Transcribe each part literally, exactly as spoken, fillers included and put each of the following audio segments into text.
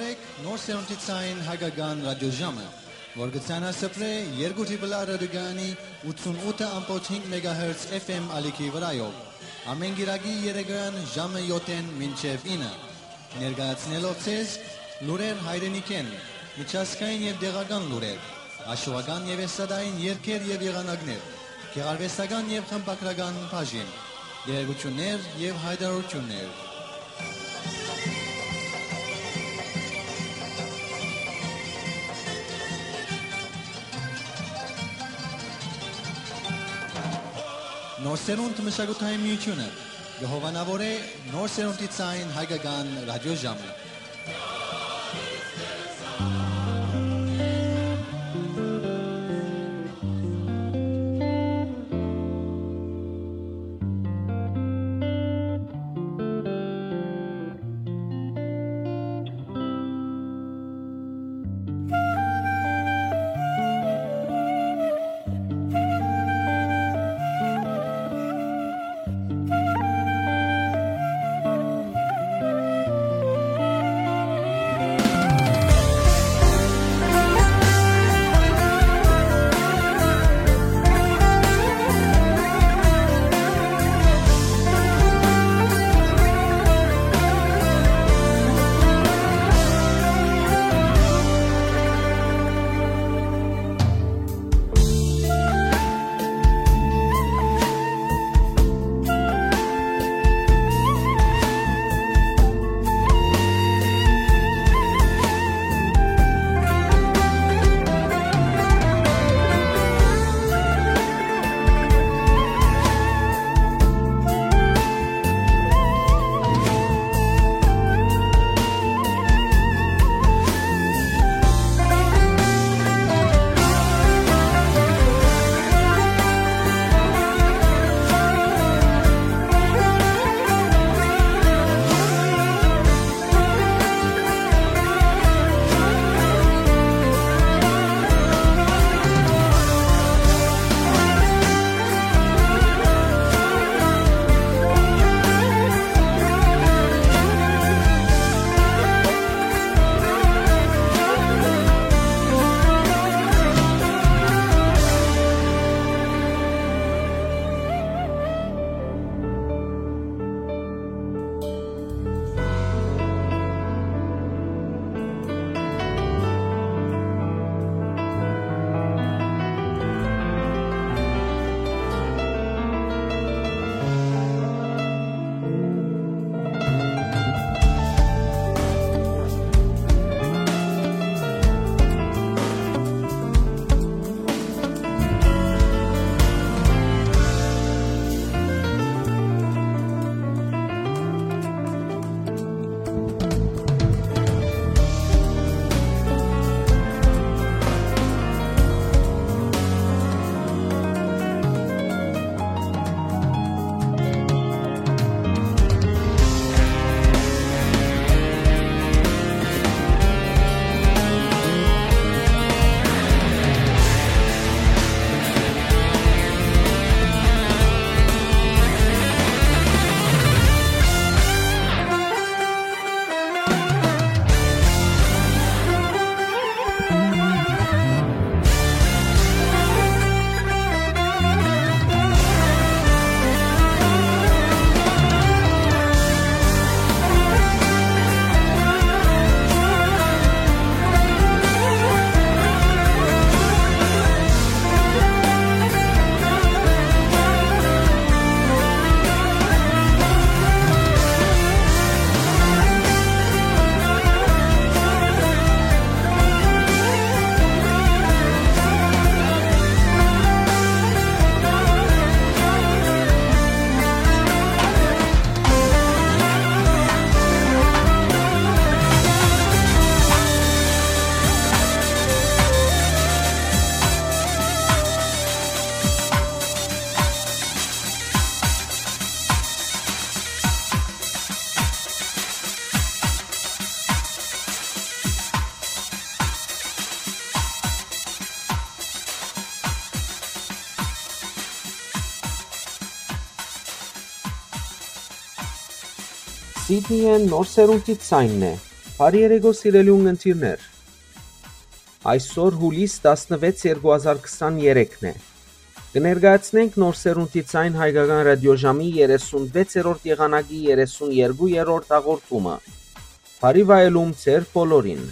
Նոր սերունդի ցային հայկական ռադիոժամը, որ կը ցանասփռէ երկու Triple R ռադիոկայանի ութսունութ ըմբոց հինգ մեգահերց F M ալիքի վրայով, ամէն կիրակի երեկոյեան ժամը յոթ մինչեւ ինը, ներկայացնելով ձեզ լուրեր հայրենիքէն, միջազգային եւ տեղական լուրեր, հաշուական եւ էստրադային երգեր եւ եղանակներ, գեղարուեստական եւ խմբագրական բաժին, տեղեկութիւններ եւ յայտարարութիւններ։ Նոր սերունդ մշակութային միութիւնը կը հովանաւորէ նոր սերունդի ցային հայկական ռադիոժամը։ Սիդնիյէն նոր սերունդի ցայնն է։ Բարի երեկո, սիրելի ունգընտիրներ։ Այսօր, հուլիս տասնվեց, երկու հազար քսաներեքն է։ Կը ներկայացնենք Նոր Սերունդի Ձայն հայկական ռադիոժամի երեսունվեցերորդ եղանակի երեսուներկուերորդ հաղորդումը։ Բարի վայելում ձեր բոլորին։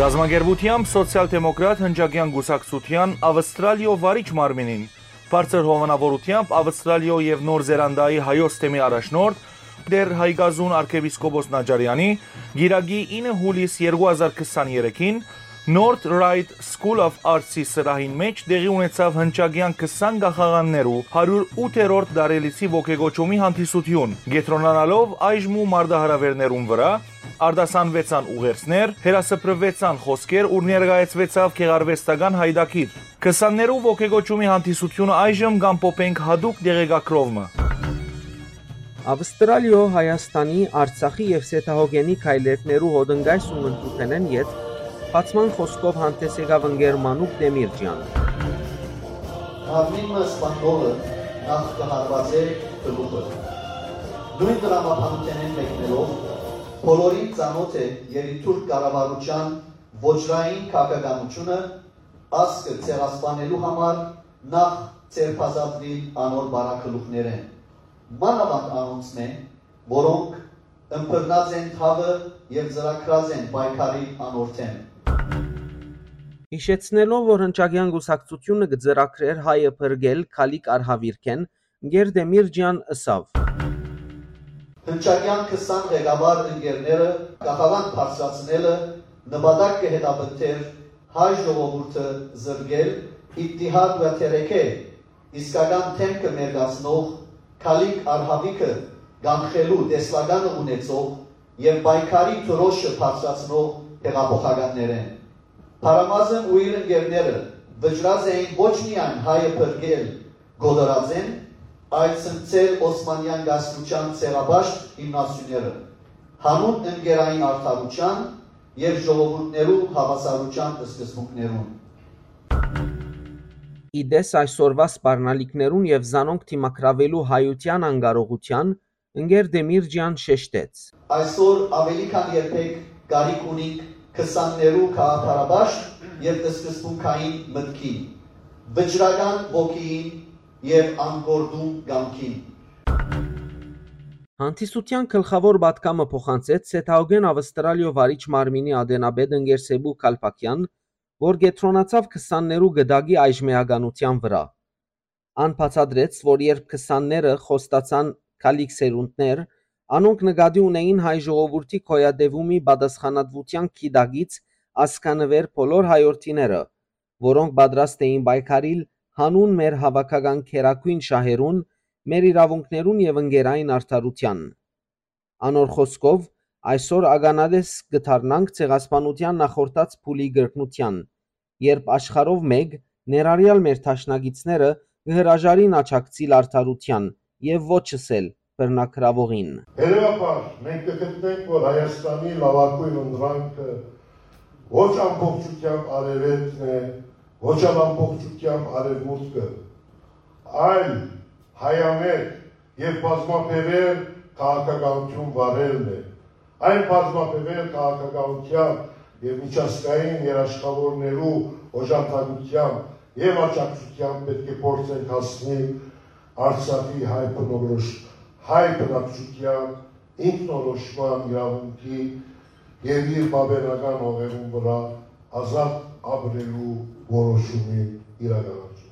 Կազմակերպութեամբ Սոցիալ-դեմոկրատ հնչակեան կուսակցութեան Ավստրալիոյ վարիչ մարմինին, բարձր հովանաւորութեամբ Ավստրալիոյ եւ Նոր Զելանդիայի հայոց թեմի առաջնորդ, Տէր Հայկազուն արքեպիսկոպոս Նաճարեանի, կիրակի ինը հուլիս երկու հազար քսաներեքին North Ryde School of Arts-ի սրահին մէջ տեղի ունեցաւ հնչակեան քսան կախաղաններու հարիւր ութերորդ տարելիցի ոգեկոչումի հանդիսութիւն, կեդրոնանալով այժմ ու մարտահրաւէրներուն վրայ, արտասանուեցան ուղերձներ, հեռասփռուեցան խօսքեր ու ներկայացուեցաւ գեղարուեստական յայտագիր։ Քսաններու ոգեկոչումի հանդիսութիւնը այժմ կ'ամփոփենք յատուկ տեղեկագրով մը։ Ավստրալիոյ, Հայաստանի, Արցախի եւ Սեդահոգենի քայլերգներու հոտնկայս ու մնտուփենէն յետ բացման խօսքով հանդէս եկաւ ընկեր Մանուկ Տեմիրճեան։ Մարմին մը սպաննողը նախ կը հարուածէ գլուխը։ Նոյն տրամաբանութենէն մեկնելով, բոլորին ծանօթ է երիտթուրք կառավարութեան ոճրային քաղաքականութիւնը, ազգը ցեղասպանելու համար նախ ձերբազատուիլ անոր բարագլուխներէն, մանաւանդ անոնցմէ, որոնք ըմբռնած են թաւը եւ ծրագրած են պայքարիլ անոր դէմ։ Յիշեցնելով, որ Հնչակեան կուսակցութիւնը կը ծրագրէր հայը փրկել Քալիք արհաւիրքէն, Գերդեմիրճեան ըսաւ. Հնչակեան քսան ղեկավար ընկերները կախաւան բարձրացնելը նպատակ կը հետապնդէր հայ ժողովուրդը զրկել, اتحاد و ترکه, իսկական դէմքը մերկացնող, Քալիք արհաւիրքը կանխելու տեսլականը ունեցող եւ պայքարի դրոշը բարձրացնող հեղափոխականներէն։ Փարամազն ու իր ընկերները վճռած էին ոչ միայն հայը փրկել կոտորածէն, այլ ցնցել Օսմանեան կայսրութեան ցեղապաշտ հիմնասիւները, յանուն ընկերային արդարութեան եւ ժողովուրդներու հաւասարութեան սկզբունքներուն։ Ի տես այսօրուայ սպառնալիքներուն եւ զանոնք դիմագրաւելու հայութեան անկարողութեան, ընկեր Դեմիրճեան շեշտեց. Այսօր աւելի քան երբեք կարիք ունինք քսաններու գաղափարաբար եւ սկզբունքային մտքին, վճռական ոգիին եւ անկորտուն կամքին։ Հանդիսութեան գլխաւոր պատգամը փոխանցեց Սեթաուգեն Ավստրալիոյ վարիչ մարմինի ատենապետ ընկեր Սեբու Քալփաքեան, որ կեդրոնացաւ քսաններու գդակի այժմեականութեան վրայ։ Ան բացատրեց, որ երբ քսանները խոստացան քալիք սերունդներ, անոնք նկատի ունէին հայ ժողովուրդի գոյատեւումի պատասխանատուութեան գիտակից ազգանուէր բոլոր հայորդիները, որոնք պատրաստ էին պայքարիլ յանուն մեր հաւաքական գերագոյն շահերուն, մեր իրաւունքներուն եւ ընկերային արդարութեան։ Անոր խօսքով, այսօր ականատես կը դառնանք ցեղասպանութեան նախորդած փուլի կրկնութեան, երբ աշխարհով մէկ, ներառեալ մեր դաշնակիցները, կը հրաժարին աջակցիլ արդարութեան եւ ոչ ըսել բռնագրաւողին։ Հետեւաբար, մենք կը գտնենք, որ Հայաստանի լաւագոյն ընտրանքը ոչ ամբողջությամբ արեւելքն է, ոչ ալ ամբողջությամբ արեւմուտքը, այլ հայամետ եւ բազմաբեւեռ քաղաքականութիւն վարելն է։ Այն բազմաբեւեռ քաղաքականութեան եւ միջազգային երաշխաւորներու օժանդակութեան եւ աջակցութեան պէտք է փորձենք հասնիլ Արցախի հայ բնորոշ, հայ բնակչութեան ինքնորոշման իրաւունքի եւ իր պապենական հողերուն վրայ ազատ ապրելու որոշումի իրականացումը։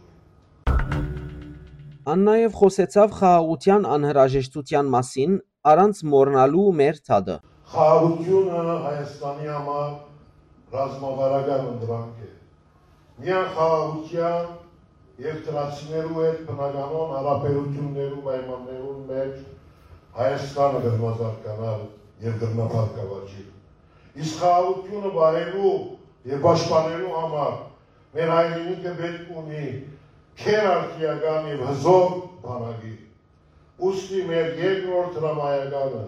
Ան նաեւ խօսեցաւ խաղաղութեան անհրաժեշտութեան մասին, առանց մոռնալու մեր թադը։ Խաղաղութիւնը Հայաստանի համար ռազմավարական ընտրանք է։ Միայն խաղաղութեան եւ թրացիներու հետ բնականոն հարաբերութիւններու պայմաններուն մէջ Հայաստանը կրնա զարգանալ եւ կրնա բարգաւաճիլ։ Իսկ խաղաղութիւնը պահելու եւ պաշտպանելու համար մեր հայրենիքը պէտք ունի գերարդիական եւ հզոր բանակի։ Ուստի մեր երկրորդ հրամայականը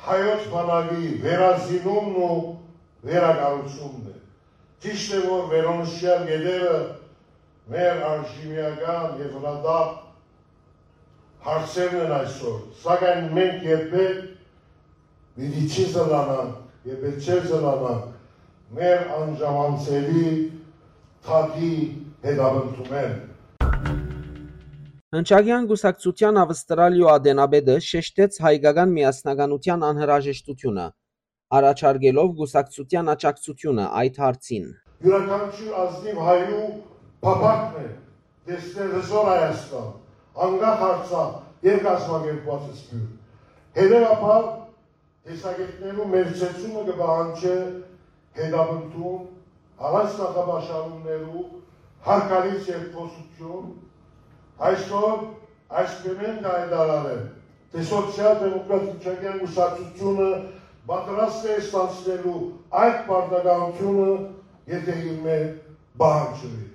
հայոց բանակի վերազինումն ու վերակառուցումն է։ Ճիշդ է, որ վերոնշյալ կետերը մեր արժիմիական եւ հրատապ հարցերն են այսօր, սակայն մենք երբեք պիտի չի զլանանք եւ պէտք չէ զլանանք մեր անժամանցելի թագի հետապնդումէն։ Հնչակեան կուսակցութեան Ավստրալիոյ ատենապետը շեշտեց հայկական միասնականութեան անհրաժեշտութիւնը, առաջարկելով կուսակցութեան աջակցութիւնը այդ հարցին։ Իւրաքանչիւր ազնիւ հայու փափաքն է տեսնել հզոր Հայաստան, անկախ Արցախ եւ կազմակերպուած սփիւռ։ Հետեւաբար, տեսակէտներու մեր ցեցումը կը պահանջէ հետապնդում, առանց նախապաշարումներու, հարգալից երկխօսութիւն։ Այսօր այս բեմէն կայտարարեմ, թէ Սոցիալ-դեմոկրատ Հնչակեան կուսակցութիւնը պատրաստ է ստանձնելու այդ պարտականութիւնը, եթէ իրմէ պահանջուի։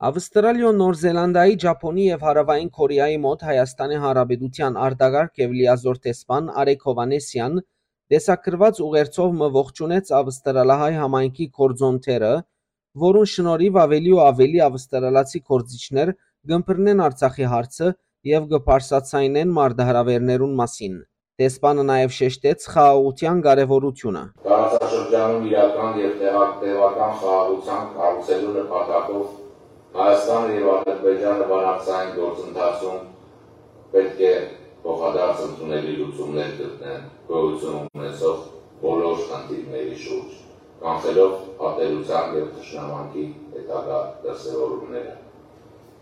Ավստրալիոյ, Նոր Զելանդիայի, Ճապոնի եւ Հարաւային Կորեայի մօտ Հայաստանի Հանրապետութեան արտակարգ եւ լիազոր դեսպան Արեգ Հովհաննիսեան տեսագրուած ուղերձով մը ողջունեց ավստրալահայ համայնքի գործոնները, որուն շնորհիվ աւելի ու աւելի ավստրալացի գործիչներ կ'ըմբռնեն Արցախի հարցը եւ կը բարձրաձայնեն մարտահրաւերներուն մասին։ Դեսպանը նաեւ շեշտեց խաղաղութեան կարեւորութիւնը։ Տարածաշրջանում իրական եւ տեղա-, տեւական խաղաղութեան կառուցելու նպատակով Հայաստանը եւ Ադրբեջանը բանակցային գործընթացում պէտք է փոխադարձ ընդունելի լուծումներ գտնեն գոյություն ունեցող բոլոր խնդիրների շուրջ։ կանխելով ատելության եւ թշնամանքի հետագայ դրսեւորումները։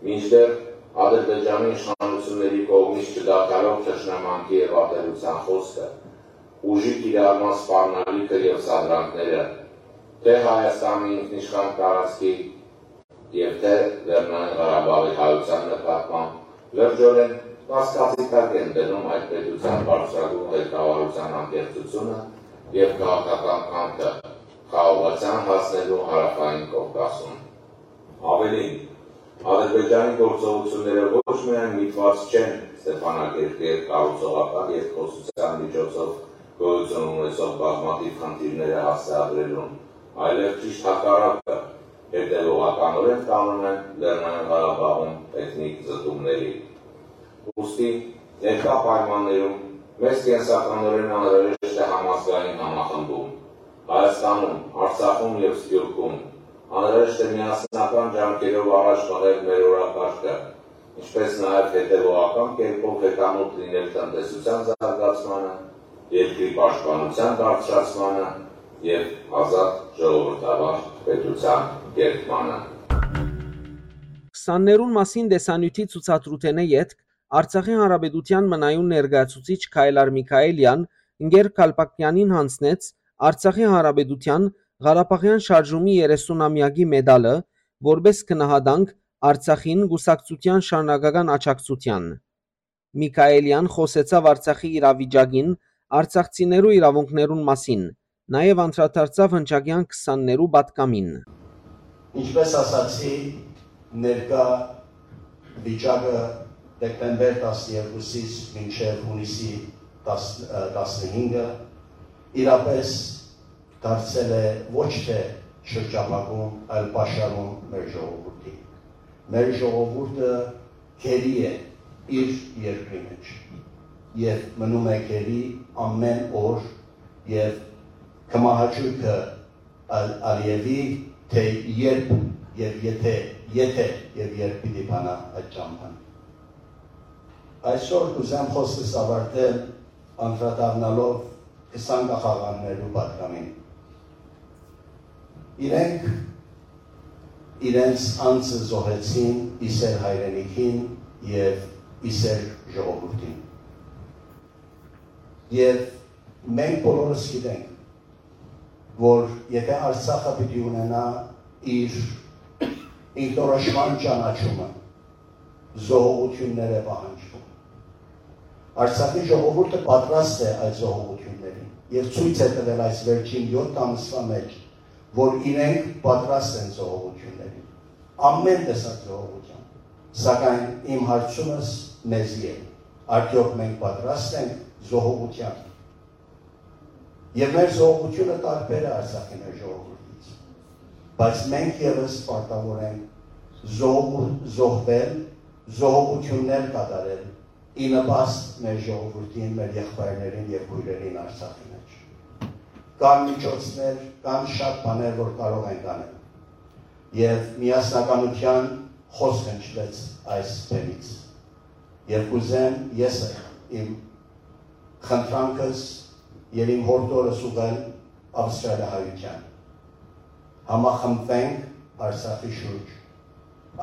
Մինչդեռ Ադրբեջանի իշխանությունների կողմից չդադարող թշնամանքի եւ ատելության խօսքը, ուժի կիրառման սպառնալիքը եւ սադրանքները, թէ Հայաստանի ինքնիշխան տարածքի եւ թէ Լեռնային Ղարաբաղի հայութեան նկատմամբ լրջօրէն կասկածի տակ են դնում այդ պետութեան բարձրագոյն ղեկավարութեան անկեղծութիւնը եւ քաղաքական կամքը խաղաղութեան հասնելու Հարաւային Կովկասում։ Աւելին, Ադրբեջանի գործողութիւնները ոչ միայն միտուած չեն Ստեփանակերտի հետ կառուցողական երկխօսութեան միջոցով գոյութիւն ունեցող բազմաթիւ խնդիրները հասցեագրելուն, այլեւ ճիշդ հակառակը, հետեւողականօրէն տանում են Լեռնային Ղարաբաղում էթնիկ զտումների։ Ուստի, ներկայ պայմաններում մեզ կենսականօրէն անհրաժեշտ է համազգային համախմբում։ Հայաստանում, Արցախում եւ Սփիւռքում անհրաժեշտ է միասնական ջանքերով առաջ մղել մեր օրակարգը, ինչպէս նաեւ հետեւողական կերպով հետամուտ լինել տնտեսութեան զարգացմանը, երկրի պաշտպանութեան բարձրացմանը եւ ազատ ժողովրդավար պետութեան կերտմանը։ Քսաններուն մասին տեսանիւթի ցուցադրութենէ ետք Արցախի Հանրապետութեան մնայուն ներկայացուցիչ Քայլար Միքայելեան ընկեր Քալպակյանին յանձնեց Արցախի Հանրապետութեան Ղարաբաղեան շարժումի երեսունամեակի մեդալը, որպէս գնահատանք Արցախին կուսակցութեան շարունակական աջակցութեան։ Միքայելեան խօսեցաւ Արցախի իրավիճակին, արցախցիներու իրաւունքներուն մասին, նաեւ անդրադարձաւ հնչակեան քսաններու պատգամին։ Ինչպէս ասացի, ներկայ վիճակը դեկտեմբեր տասներկուսից մինչեւ յունիսի տասնհինգը իրապէս դարձել է ոչ թէ շրջափակում, այլ պաշարում մեր ժողովուրդին։ Մեր ժողովուրդը գերի է իր երկրի մէջ եւ մնում է գերի ամէն օր եւ կը մահաճոյ Ալ-, Ալիևի, թէ երբ եւ եթե, եթե եւ երբ պիտի բանայ այդ ճամբան։ Այսօր կ'ուզեմ խօսքս աւարտել անդրադառնալով քսան կախաղաններու պատգամին։ Իրենք իրենց անձը զոհեցին ի սէր հայրենիքին եւ ի սէր ժողովուրդին։ Եւ մենք բոլորս գիտենք, որ եթե Արցախը պիտի ունենայ իր ինքնորոշման ճանաչումը, զոհողութիւններ է պահանջվում։ Արցախի ժողովուրդը պատրաստ է այդ զոհողութիւններին եւ ցոյց է տուել այս վերջին յոթ ամսուայ մէջ, որ իրենք պատրաստ են զոհողութիւններին, ամէն տեսակ զոհողութեան։ Սակայն իմ հարցումս մեզի է. արդեօք մենք պատրաստ ենք զոհողութեան։ Եւ մեր զոհողութիւնը տարբեր է Արցախի մեր ժողովուրդից, բայց մենք եւս պարտաւոր ենք զոհ-, զոհվել, զոհողութիւններ կատարել ի նպաստ մեր ժողովուրդին, մեր եղբայրներին եւ քոյրերին Արցախի մէջ։ Կան միջոցներ, կան շատ բաներ, որ կարող ենք անել։ Եւ միասնականութեան խօսք հնչուեց այս բեմից։ Եւ կ'ուզեմ ես իմ խնդրանքս եւ իմ յորդորս ուղղել Ավստրալիահայութեան։ Համախմբվենք Արցախի շուրջ։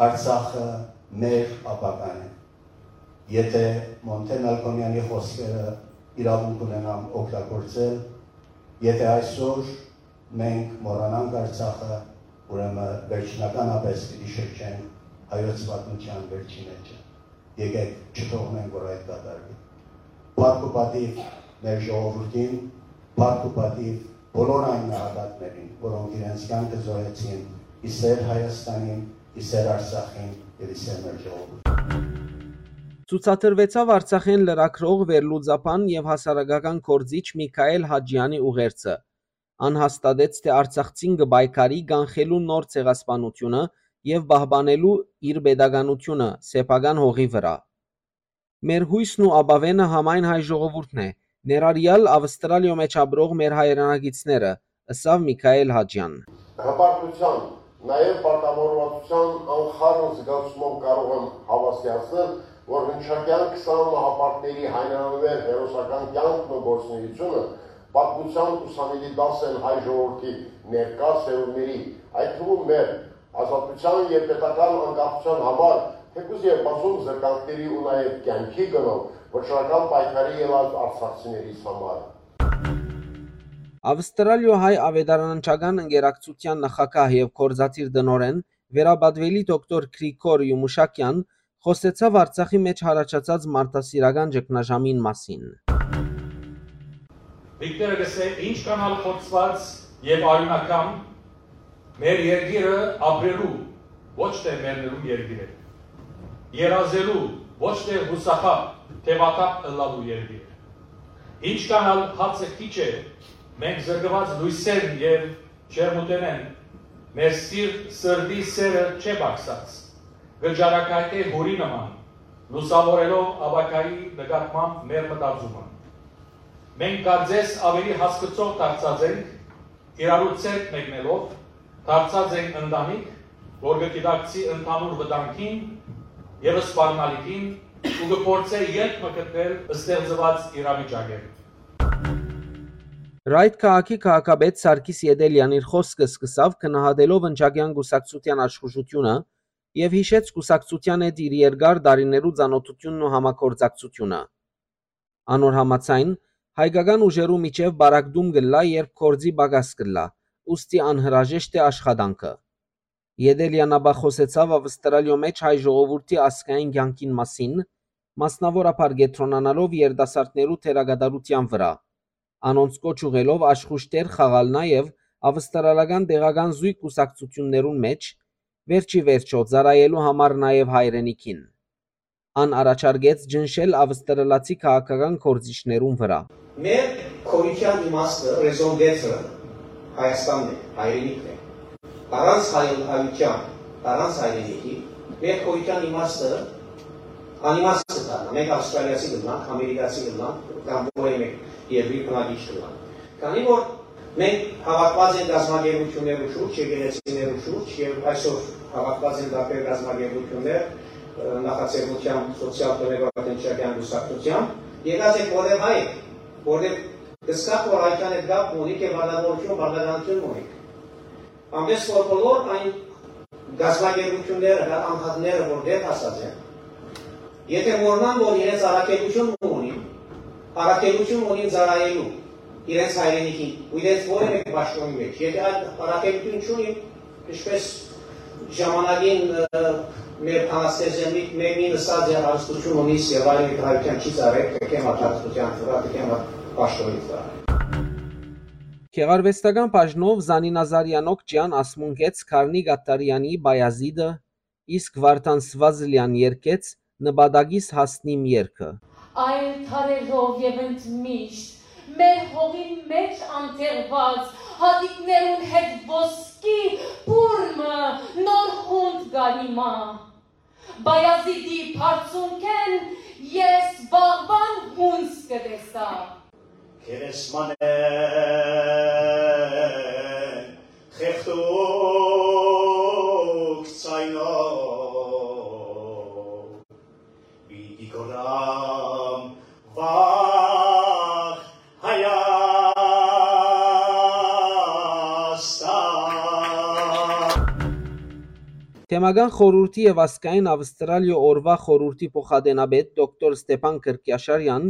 Արցախը մեր ապագան է։ Եթե Մոնտե Մալքոմեանի խօսքերը իրաւունք ունենամ օգտագործել, եթե այսօր մենք մոռանանք Արցախը, ուրեմն վերջնականապես պիտի շրջենք հայոց պատմութեան վերջին էջը։ Եկեք չթողնենք, որ այդ կատարուի։ Փառք ու պատիւ մեր ժողովուրդին, փառք ու պատիւ բոլոր այն նահատակներին, որոնք իրենց կյանքը զոհեցին ի սէր Հայաստանին, ի սէր Արցախին եւ ի սէր մեր ժողովուրդին։ Ցուցադրուեցաւ Արցախէն լրագրող, վերլուծաբան եւ հասարակական գործիչ Միքայել Հաճեանի ուղերձը։ Ան հաստատեց, թէ արցախցին կը պայքարի կանխելու նոր ցեղասպանութիւնը եւ պահպանելու իր պետականութիւնը սեփական հողի վրայ։ Մեր յոյսն ու ապաւէնը համայն հայ ժողովուրդն է, ներառեալ Ավստրալիոյ մէջ ապրող մեր հայրենակիցները, ըսաւ Միքայել Հաճեան։ Հպարտության, նաեւ պարտավորվածության անխառն զգացումով կարող եմ հավաստիացնել, որ հնչակեան քսան մահապարտների հայրենանվեր հերոսական կյանքն ու գործունեությունը Պատմութեան ուսանելի դաս են հայ ժողովուրդի ներկայ սերունդների, այդ թվում մեր ազատութեան եւ պետական անկախութեան համար, թէկուզ եւ բազում զրկանքների ու նաեւ կեանքի գնով վճռական պայքարի ելած արցախցիներիս համար։ Ավստրալիոյ հայ աւետարանչական ընկերակցութեան նախագահ եւ գործադիր տնօրէն, վերապատուելի դոկտոր Գրիգոր Յումուշակեան, խօսեցաւ Արցախի մէջ յառաջացած մարդասիրական ճգնաժամին մասին։ Վիկտորը կ'ըսէ. «Ինչ կ'անալ խոցուած եւ արիւնակամ, մեր երկիրը ապրելու, ոչ թէ մեռնելու երկիր է։ Երազելու, ոչ թէ յուսախաբ, թեւաթափ ըլլալու երկիր է։ Ինչ կ'անալ հացը քիչ է, մենք զրկուած լոյսերն եւ ջերմութենէն, մեր սիրտ, սրտի սերը չէ պակսած, կը ճառագայթէ յուրի նման, լուսաւորելով ապագայի նկատմամբ մեր մտածումը։ Մենք կարծես ավելի հասկցող դարձած ենք, իրարու ձեռք մեկնելով, դարձած ենք ընտանիք, որ կը գիտակցի ընդհանուր վտանգին եւ սպառնալիքին ու կը փորձէ ելք մը գտնել ստեղծուած իրավիճակէն»։ Ռայթ քաղաքի քաղաքապետ Սարգիս Ետելեան իր խօսքը սկսաւ գնահատելով Ընչակեան կուսակցութեան աշխուժութիւնը եւ յիշեց կուսակցութեան հետ իր երկար տարիներու ծանօթութիւնն ու համագործակցութիւնը։ Անոր համաձայն, հայկական ուժերու միջեւ պառակտում կ'ըլլայ, երբ գործի պակաս կ'ըլլայ, ուստի անհրաժեշտ է աշխատանքը։ Ետելեան ապա խօսեցաւ Ավստրալիոյ մէջ հայ ժողովուրդի ազգային կեանքին մասին, մասնաւորաբար կեդրոնանալով երիտասարդներու դերակատարութեան վրայ, անոնց կոչ ուղղելով աշխուժ դեր խաղալ նաեւ ավստրալական տեղական զոյգ կուսակցութիւններուն մէջ, վերջի վերջոյ ծառայելու համար նաեւ հայրենիքին։ Ան առաջարկեց ճնշել ավստրալացի քաղաքական գործիչներուն վրայ։ Մեր գոյութեան իմաստը, raison d'être-ը Հայաստանն է, հայրենիքն է։ Առանց հայ-, հայութեան, առանց հայրենիքի, մեր գոյութեան իմաստը անիմաստ կը դառնայ։ Մենք ավստրալիացի կ'ըլլանք, ամերիկացի կ'ըլլանք, կամ որեւէ մէկ երկրի բնակիչ կ'ըլլանք։ Քանի որ մենք հաւաքուած ենք կազմակերպութիւններու շուրջ, եկեղեցիներու շուրջ, եւ այսօր հաւաքուած են տարբեր կազմակերպութիւններ, ը, նախաձեռնությամբ Սոցիալ-դեմոկրատ Ընչակեան կուսակցութեան, եկած ենք որտեղ հայ եք, որտեղ կ'զգաք, որ հայկան հետ կապ ունիք եւ պարտականութիւն, պարտականութիւն ունիք։ Այնպէս որ բոլոր այն կազմակերպութիւնները կամ անհատները, որ վեր հասած են, եթե մոռնան, որ իրենց առաքելութիւն ունին, առաքելութիւն ունին ծառայելու իրենց հայրենիքին ու իրենց որեւէ պաշտոնի մէջ, եթե այդ առաքելութիւն չունին, ինչպես ժամանակին, ը, մեր բանաստեղծը մի-, մեկին ըսած է, «Հարստութիւն ունիս եւ այլ հայութեան չի ծառայ, թեքեմ այդ հարստութեան վրայ, թեքեմ այդ պաշտոնի վրայ»։ Գեղարուեստական բաժնով Զանինա Զարեան Օքճեան ասմունքեց Գառնիկ Աթարեանի Բայազիդը, իսկ Վարդան Սվազլեան երգեց Նպատակիս հասնիմ երգը։ Այլ դարերով եւ ընդմիշտ մեր հողին մէջ անթեղուած հատիկներուն հետ ոսկի բուռ մը նոր յունդ կ'արի մայ։ Բայազիդի բարձունքէն ես վաղուան յունս կը տեսայ։ Գերեզմանէն խեղդուկ ձայնով պիտի գոռամ վաղ Հայաստան։ Թեմական խորհուրդի եւ ազգային Ավստրալիոյ օրուայ խորհուրդի փոխադենապետ դոկտոր Ստեփան Կրկիաշարեան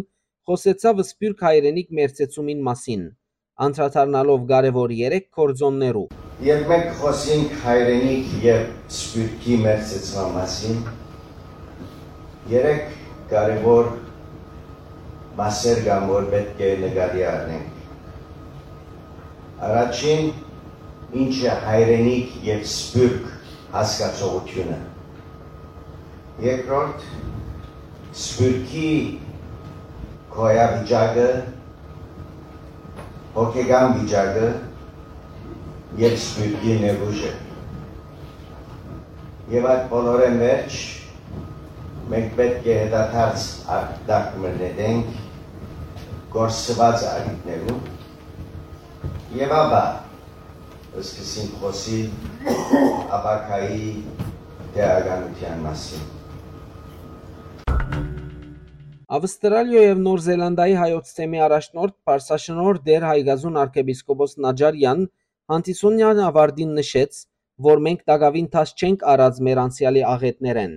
խօսեցաւ Սփիւռք հայրենիք մերձեցումին մասին, անդրադառնալով կարեւոր երեք գործօններու։ Երբ մենք կխօսենք հայրենիք եւ սփիւռքի մերձեցման մասին, երեք կարեւոր մասեր կան, որ պէտք է նկատի առնենք։ Առաջին, ինչ է հայրենիք եւ սփիւռք հասկացողութիւնը։ Երկրորդ, սփիւռքի գոյավիճակը, հոգեկան վիճակը եւ սփիւռքի ներուժը։ Եւ այդ բոլորէն վերջ մենք պէտք է հետադարձ արտակ մը նետենք կորսուած առիթներուն եւ ապա սկսենք խօսիլ ապագայի տեղականութեան մասին։ Ավստրալիոյ եւ Նոր Զելանդիայի հայոց թեմի առաջնորդ Պարսաշնորհ Տէր Հայկազուն արքեպիսկոպոս Նաճարեան հանդիսութեան աւարտին նշեց, որ մենք տակաւին դաս չենք առած մեր անցեալի աղէտներէն,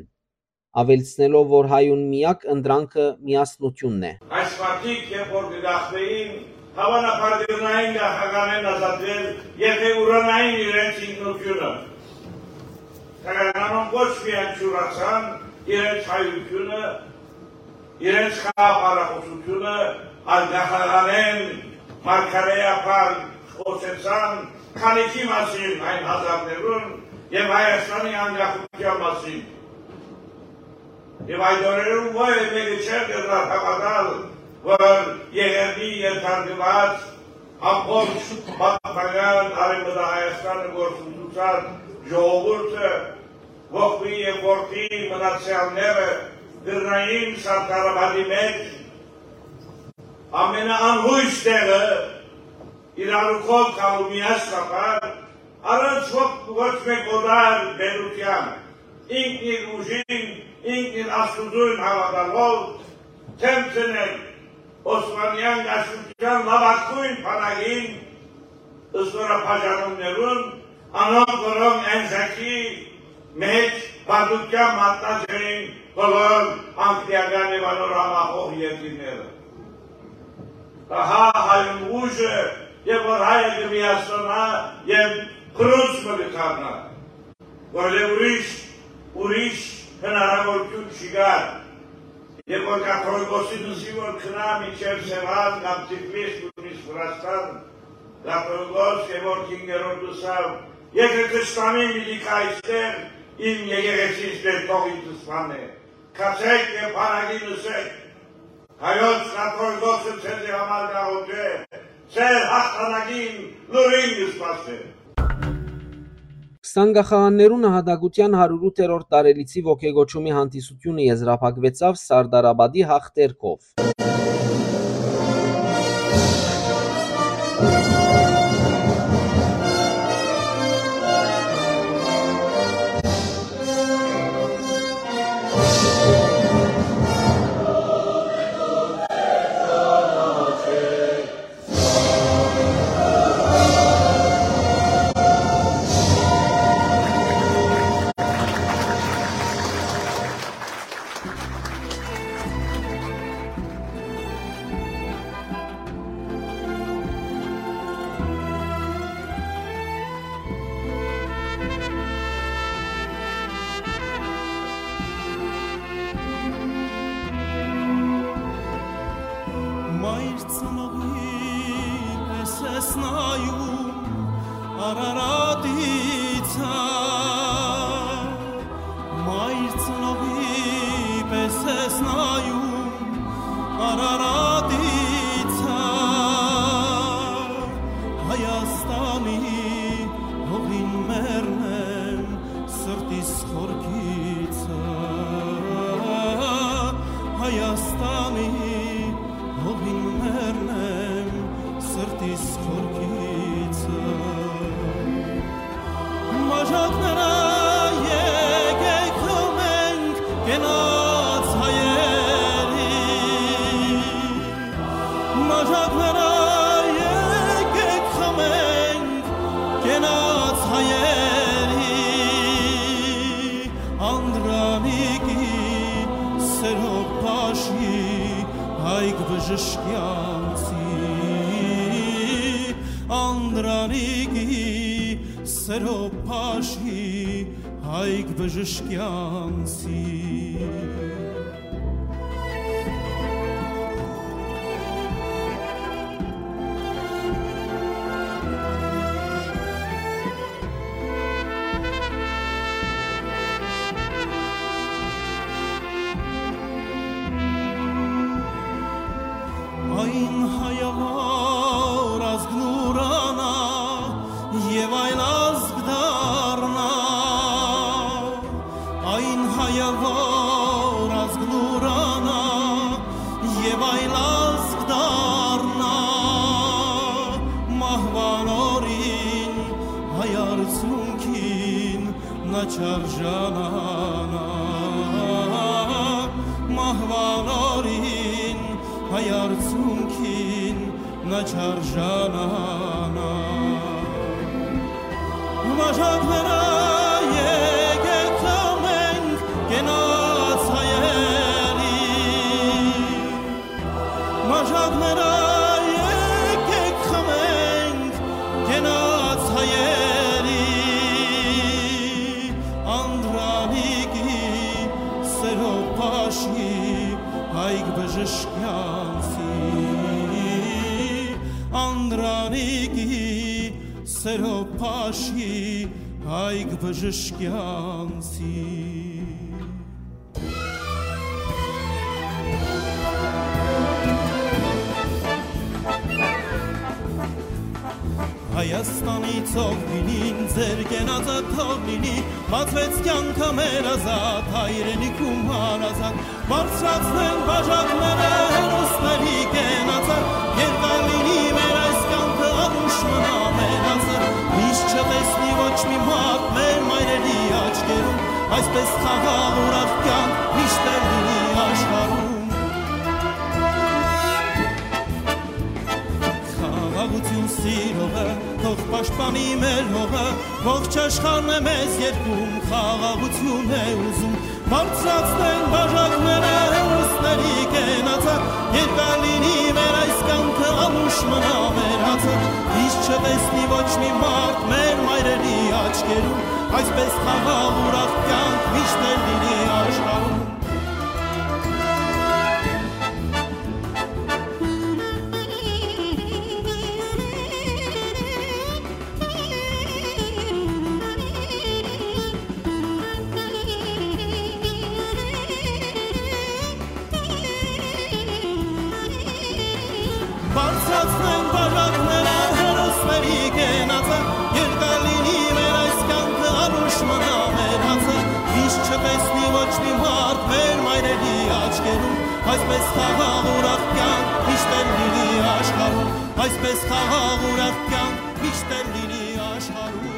աւելցնելով, որ հայուն միակ ընտրանքը միասնութիւնն է։ Այս մարդիկ, երբ որ կը գաղթէին, հաւանաբար կրնային գաղթականէն ազատվել, եթէ ուրանային իրենց ինքնութիւնը։ Սակայն անոնք ոչ միայն չուրացան իրենց հայութիւնը, իրենց խաղապարախոսութիւնը, այլ գաղթականէն մարգարէաբար խօսեցան քանիքի մասին այն հազարներուն եւ Հայաստանի անկախութեան մասին։ Եւ այդ օրերուն ոեւէ մէկը չէր կրնար հաւատալ, որ Եղեռնի ենթարկուած ամբողջ պատմական Արեւմտահայաստանը գործընծուած ժողովուրդը, ողբի եւ որդի մնացեալները կրնային Սարդարապատի մէջ ամենաանհոյս տեղը իրարու քով գալու միասնաբար, առանց ոչ, ոչ մէկ օտար պետութեան, ինքն իր ուժին, ինքն իր Աստուծոյն հաւատալով, դէմ դնել Օսմանեան կայսրութեան լաւագոյն բանակին, զօրաբաժանումներուն, անոնք, որոնք Էնզակի մէջ պարտութեան մատնած էին բոլոր անգլիական եւ անոր համախոհ երկիրները։ Ահա հայուն ուժը, եւ որ հայը կը միասնանայ եւ փռունց մը կը դառնայ, որտեղ ուրիշ, ուրիշ հնարաւորութիւն չի գար, եւ որ կաթողիկոսին ըսի, որ գնայ մինչեւ Սեւան կամ Թիֆլիս, նոյնիսկ Վրաստան, կաթողիկոս Գեորգ հինգերորդ ըսաւ. «Եթէ թշնամին պիտի գայ այստեղ, իմ եկեղեցիս դեռ թող ինձ սպանէ։ Գացէք եւ բանակին ըսէք. հայոց կաթողիկոսը ձեզի համար կ'աղօթէ, ձեր հաղթանակին լուրին կը սպասէ»։ Քսան գաղթականներուն նահատակութեան հարիւրութերորդ տարելիցի ոգեկոչումի հանդիսութիւնը եզրափակուեցաւ Սարդարապատի հաղթերքով։ Մայր ծնողի պէս ես նայում Արարատի ցայ, մայր ծնողի պէս ես նայում Արարատի ցայ, Հայաստանի հողին մեռնեմ, սրտիս խորքիցը, Հայաստանի հողին մեռնեմ, սրտիս խորքիցը։ Մաժակները եկեք խմենք կենաց հայերի, մաժակները եկեք խմենք կենաց հայերի, Անդրանիկի սերով փաշի Հայկ Բժշկեանցի, Անդրանիկի սերով փաշի Հայկ Բժշկեանցի։ Այն հայը, որ ազգ կ'ուրանայ եւ այլ ազգ դառնայ, այն հայը, որ ազգ կ'ուրանայ եւ այլ ազգ դառնայ, մահուան օրին հայ արցունքին Նաճարեան, մահուան օրին Արցունքին նա չարժանանայ։ Մաժակներէ եկեք խմենք կենաց հայերի։ Մաժակներէ եկեք խմենք կենաց հայերի։ Անդրանիկի սերով փաշի Հայկ Բժշկեանցի, Անդրանիկի սերով փաշի Հայկ Բժշկեանցի։ Հայաստանի ծովին ձեր կենացը թող լինի, բացվեց կյանքը մեր ազատ, հայրենիքում հարազատ, բարձրացնեն բաժակները հերոսների կենացը, երկար լինի մեր այս կյանքը, անուշ մնա մեր անձը, միշտ չտեսնի ոչ մի մարդ մեր մայրերի աչքերում, այսպես խաղաղ ուրախ կյանք միշտ էլ լինի աշխարհում։ Խաղաղություն սիրողը, թող պաշտպանի մեր հողը, ողջ աշխարհն է մեզ երկում, խաղաղություն է ուզում, բարձրացնեն բաժակները հերոսների կենացը, երկար լինի մեր այս կյանքը, անուշ մնա մեր անձը, միշտ չտեսնի ոչ մի մարդ մեր մայրերի աչքերում, այսպես խաղաղ ուրախ կյանք միշտ էլ լինի աշխարհում։ Բարձրացնեն բաժակները հերոսների կենացը, երկար լինի մեր այս կյանքը, անուշ մնա մեր անձը, միշտ չտեսնի ոչ մի մարդ մեր մայրերի աչքերում, այսպես խաղաղ ուրախ կյանք միշտ էլ լինի աշխարհում, այսպես խաղաղ ուրախ կյանք միշտ էլ լինի աշխարհում։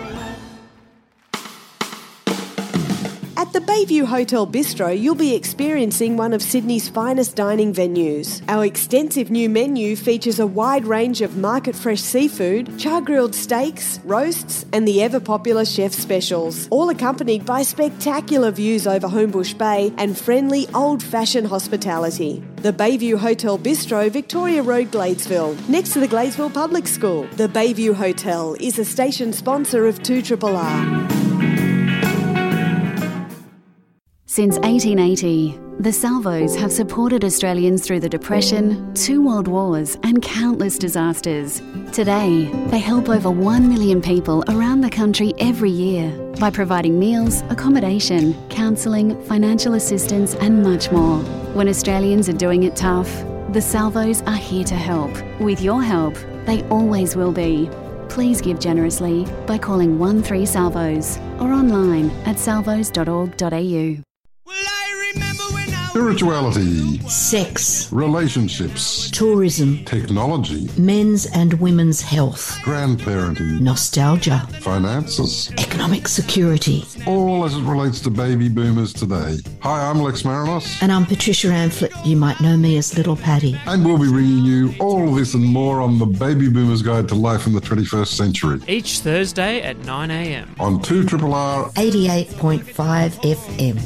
At the Bayview Hotel Bistro, you'll be experiencing one of Sydney's finest dining venues. Our extensive new menu features a wide range of market fresh seafood, char grilled steaks, roasts, and the ever popular chef specials, all accompanied by spectacular views over Homebush Bay and friendly old fashioned hospitality. The Bayview Hotel Bistro, Victoria Road, Gladesville, next to the Gladesville Public School. The Bayview Hotel is a station sponsor of two triple R. Since eighteen eighty, the Salvos have supported Australians through the Depression, two world wars, and countless disasters. Today, they help over one million people around the country every year by providing meals, accommodation, counselling, financial assistance, and much more. When Australians are doing it tough, the Salvos are here to help. With your help, they always will be. Please give generously by calling one three Salvos or online at salvos dot org dot a u. Spirituality, sex, relationships, tourism, technology, men's and women's health, grandparenting, nostalgia, finances, economic security. All as it relates to baby boomers today. Hi, I'm Lex Marinos. And I'm Patricia Amphlett. You might know me as Little Patty. And we'll be bringing you all this and more on the Baby Boomers Guide to Life in the twenty-first Century. Each Thursday at nine a m. On two triple R eighty-eight point five F M.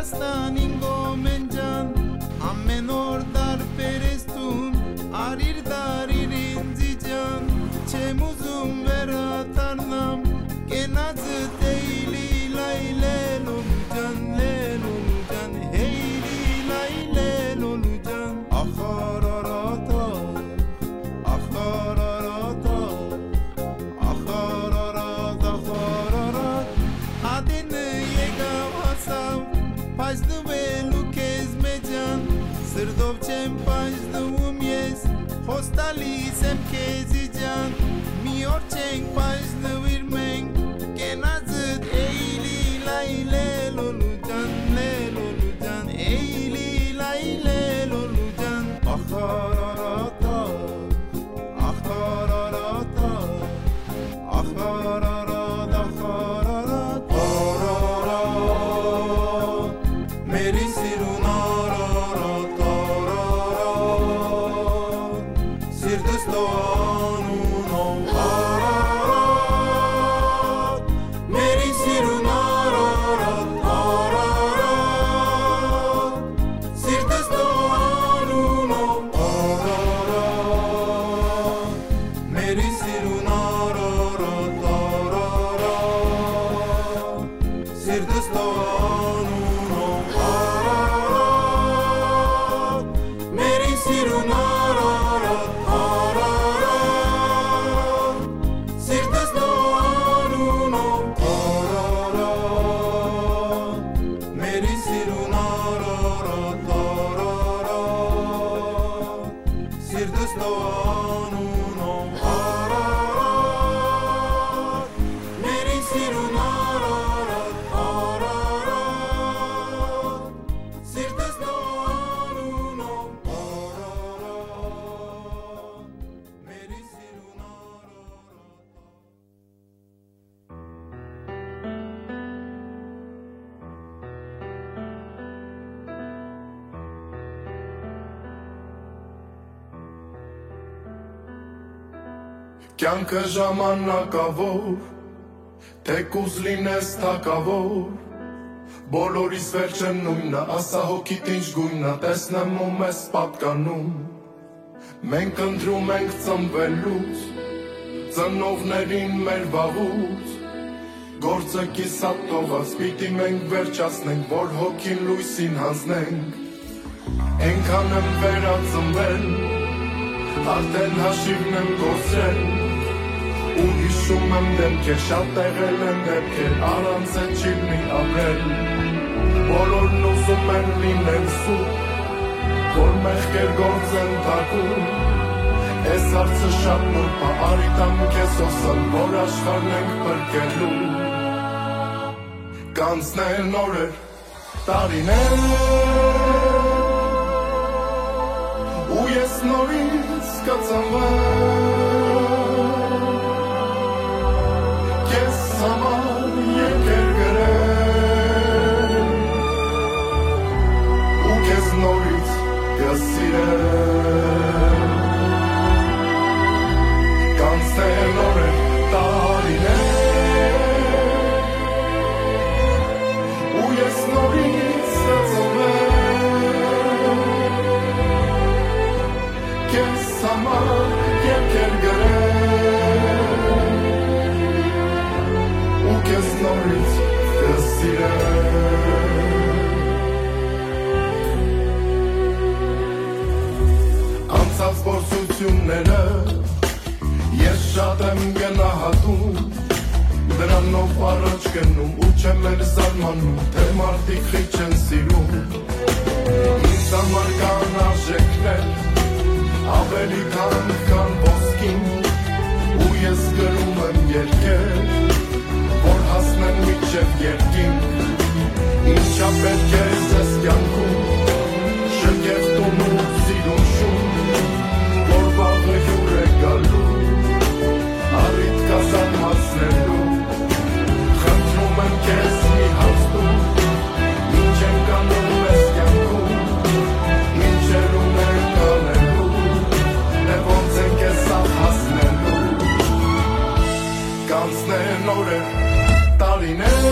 Ստանին գոմեն ջան, ամեն օր տարբեր ես դուն, արիր դարիր ինձի ջան, չեմ ուզում վերադառնամ, կենացդ էյլի լայ լե լոլու ջան, լե լոլու ջան, էյլի լայ լե լոլու ջան, ախարարատա, ախարարատա, ախարարատ, ախարարատ, ատենը եկաւ հասաւ, պայծնուելու քեզ մէ ջան, սրտով չեմ պայծնվում ես, խոստալիս եմ քեզի ջան, մի օր չենք պայծնուիր մենք, կենացդ էյլի լայ լե լոլու ջան, լե լոլու ջան, էյլի լայ լե լոլու ջան, ախարարատա, ախարարատա, ախարարատ, ախարարատ, արարատ, մերի սիրուն արարատ, արարատ, սիրտս տո անունով արարատ, մերի սիրուն արարատ, արարատ, սիրտս տո անունով արարատ, մերի սիրուն արարատ, արարատ, սիրտս տո անունով արարատ, մերի սիրուն արարատ, արարատ, սիրտս տո անունով արարատ, մերի սիրուն արարատ, արարատ, սիրտս տո անունով արարատ, մերի սիրուն արարատ, արարատ, սիրտս տո անունով արարատ, մերի սիրուն արարատ։ Կյանքը ժամանակաւոր, թեկուզ լինես թագաւոր, բոլորիս վերջը նոյնն է, ասա հոգիդ ինչ գոյնն է, տեսնեմ ու մեզ պատկանում։ Մենք ընտրում ենք ծնվելուց, ծնողներին մեր վաղուց, գործը կիսատ թողած պիտի մենք վերջացնենք, որ հոգին լոյսին յանձնենք։ Այնքան եմ վերածնվել, արդեն հաշիվն եմ կորցրել, ու հիշում եմ դեմքեր, շատ եղել են դեպքեր, առանց այդ չի լինի ապրել։ Բոլորն ուզում են լինել սուրբ, որ մեղքեր գործեն թաքուն։ Այս հարցը շատ նուրբ է, արի տամ քեզ հոսան, որ աշխարհն ենք փրկելու։ Կանցնեն օրեր, տարիներ, ու ես նորից կծնվեմ, քեզ համար երկեր գրեմ, ու քեզ նորից կսիրեմ։ Կանցնեն օրեր, տարիներ, ու ես նորից կծնվեմ, քեզ համար երկեր գրեմ, ու քեզ նորից կսիրեմ։ Անցած փորձությունները ես շատ եմ գնահատում, դրանով առաջ գնում ու չեմ էլ զարմանում, թե մարդիկ խիչ են սիրում։ Ինձ համար կան արժեքներ, ավելի քան, քան ոսկին, ու ես գրում եմ երկեր, որ հասնեն մինչև երկինք։ Ինչապէս քեզ ես կյանքում շքեղ տուն ու սիրուն շուն, որ վաղը հիւր է գալու, առիթ կա զարմացնելու։ Խնդրում եմ քեզ, մի հարց տուր, ինչ ենք անում այս կյանքում, ինչեր ունենք անելու, դե ո՞նց ենք այս սաղ հասնելու։ Կանցնեն օրեր, տարիներ,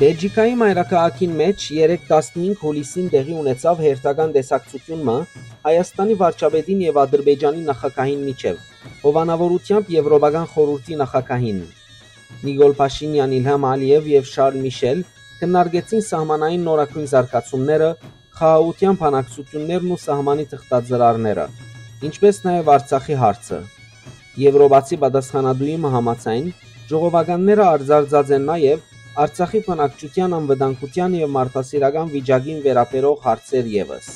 Բելգիքայի մայրաքաղաքին մէջ երեկ, տասնհինգ յուլիսին, տեղի ունեցաւ հերթական տեսակցութիւն մը Հայաստանի վարչապետին եւ Ադրբեջանի նախագահին միջեւ, հովանաւորութեամբ Եւրոպական խորհուրդի նախագահին։ Նիկոլ Փաշինեան, Իլհամ Ալիեւ եւ Շարլ Միշել քննարկեցին սահմանային նորագոյն զարգացումները, խաղաղութեան բանակցութիւններն ու սահմանի թղթածրարները, ինչպէս նաեւ Արցախի հարցը։ Եւրոպացի պատասխանատուի մը համաձայն, ժողովականները արձարծած են նաեւ Արցախի բնակչութեան անվտանգութեան եւ մարդասիրական վիճակին վերաբերող հարցեր եւս։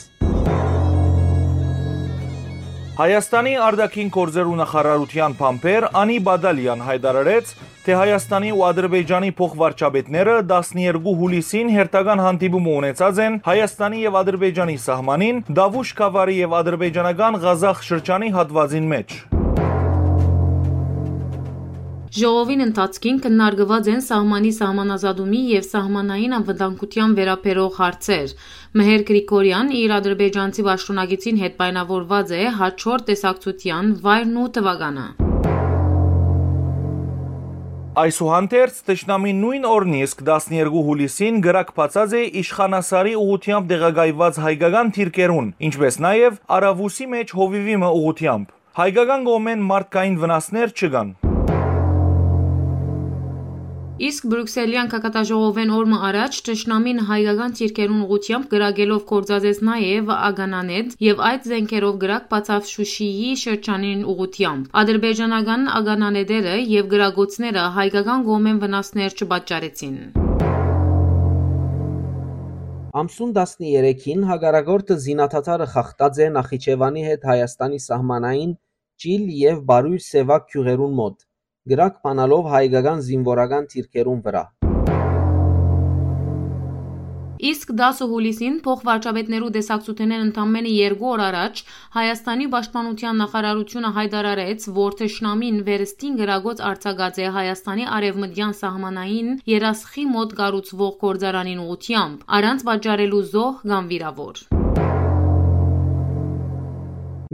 Հայաստանի արտաքին գործերու նախարարութեան բանբեր Անի Բադալեան յայտարարեց, թէ Հայաստանի ու Ադրբեջանի փոխվարչապետները տասներկու յուլիսին հերթական հանդիպումը ունեցած են Հայաստանի եւ Ադրբեջանի սահմանին, Դավուշ գաւառի եւ ադրբեջանական Ղազախ շրջանի հատուածին մէջ։ Ժողովին ընթացքին քննարկուած են սահմանի սահմանազատումի եւ սահմանային անվտանգութեան վերաբերող հարցեր։ Մհեր Գրիգորեան իր ադրբեջանցի պաշտօնակիցին հետ պայմանավորուած է հաջորդ տեսակցութեան վայրն ու թուականը։ Այսուհանդերձ, թշնամին նոյն օրն իսկ, տասներկու յուլիսին, կրակ բացած է Իշխանասարի ուղղութեամբ տեղակայուած հայկական դիրքերուն, ինչպէս նաեւ Արաւուսի մէջ հովիւի մը ուղղութեամբ։ Հայկական կողմէն մարդկային վնասներ չկան։ Իսկ Բրիւքսելեան գագաթաժողովէն օր մը առաջ թշնամին հայկական դիրքերուն ուղղութեամբ կրակելով գործածեց նաեւ ականանետ եւ այդ զէնքերով կրակ բացաւ Շուշիի շրջանին ուղղութեամբ։ Ադրբեջանական ականանետերը եւ կրակոցները հայկական կողմէն վնասներ չպատճառեցին։ Ամսուն տասներեքին հակառակորդը զինադադարը խախտած է Նախիջեւանի հետ Հայաստանի սահմանային Ճիլ եւ Բարոյր Սեւակ գիւղերուն մօտ, կրակ բանալով հայկական զինուորական դիրքերուն վրայ։ Իսկ տասը յուլիսին փոխվարչապետներու տեսակցութենէն ընդամենը երկու օր առաջ Հայաստանի պաշտպանութեան նախարարութիւնը յայտարարեց, որ թշնամին վերստին կրակոց արձակած է Հայաստանի արեւմտեան սահմանային երասխի մօտ կառուցուող գործարանին ուղղութեամբ, առանց պատճառելու զոհ կամ վիրաւոր։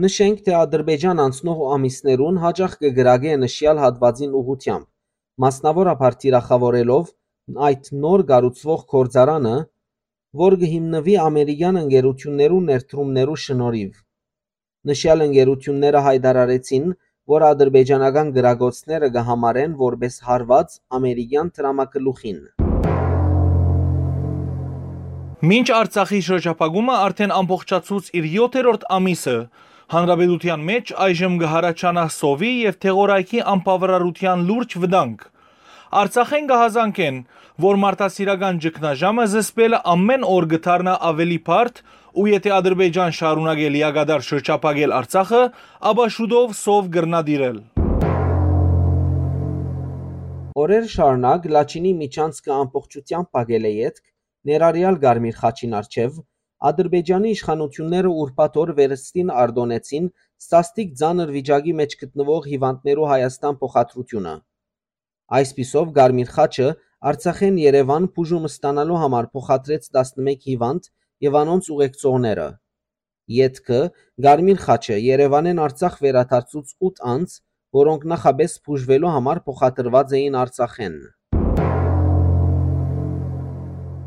Նշենք, թէ Ադրբեջան անցնող ամիսներուն յաճախ կը կրակէ նշեալ հատուածին ուղղութեամբ, մասնաւորաբար թիրախաւորելով այդ նոր կառուցուող գործարանը, որ կը հիմնուի ամերիկեան ընկերութիւններու ներդրումներու շնորհիւ։ Նշեալ ընկերութիւնները յայտարարեցին, որ ադրբեջանական կրակոցները կը համարեն որպէս հարուած ամերիկեան դրամագլուխին։ Մինչ Արցախի շրջափակումը արդէն ամբողջացուց իր յոթերորդ ամիսը, հանրապետութեան մէջ այժմ կը յառաջանայ սովի եւ դեղորայքի անբաւարարութեան լուրջ վտանգ։ Արցախէն կը հազանգեն, որ մարդասիրական ճգնաժամը զսպելը ամէն օր կը դառնայ աւելի բարդ ու եթէ Ադրբեջան շարունակէ լիակատար շրջափակել Արցախը, ապա շուտով սով կրնայ տիրել։ Օրեր շարունակ Լաչինի միջանցքը ամբողջութեամբ փակելէ ետք, ներառեալ Կարմիր խաչին առջեւ, Ադրբեջանի իշխանութիւնները ուրբաթ օր վերստին արտօնեցին սաստիկ ծանր վիճակի մէջ գտնուող հիւանդներու Հայաստան փոխադրութիւնը։ Այսպիսով, Կարմիր խաչը Արցախէն Երեւան բուժում ստանալու համար փոխադրեց տասնմէկ հիւանդ եւ անոնց ուղեկցողները։ Ետքը Կարմիր խաչը Երեւանէն Արցախ վերադարձուց ութ անձ, որոնք նախապէս բուժուելու համար փոխադրուած էին Արցախէն։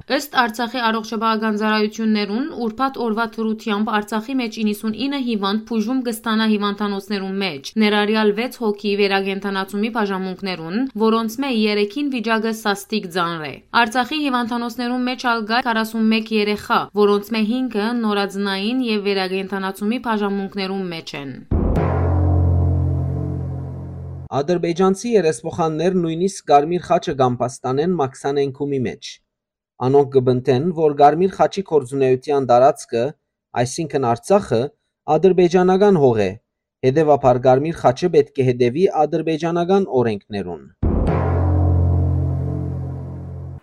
Ըստ Արցախի առողջապահական ծառայութիւններուն, ուրբաթ օրուայ դրութեամբ Արցախի մէջ իննսունինը հիւանդ բուժում կը ստանայ հիւանդանոցներուն մէջ, ներառեալ վեց հոգի վերակենդանացումի բաժանմունքներուն, որոնցմէ երեքին վիճակը սաստիկ ծանր է։ Արցախի հիւանդանոցներուն մէջ ալ կայ քառասունմէկ երեխայ, որոնցմէ հինգը նորածնային եւ վերակենդանացումի բաժանմունքներուն մէջ են։ Ադրբեջանցի երեսփոխաններ նոյնիսկ Կարմիր խաչը կ'ամբաստանեն Մաքսանենքումի մէջ։ Անոնք կը պնդեն, որ Կարմիր խաչի գործունեութեան տարածքը, այսինքն Արցախը, ադրբեջանական հող է, հետեւաբար Կարմիր խաչը պէտք է հետեւի ադրբեջանական օրէնքներուն։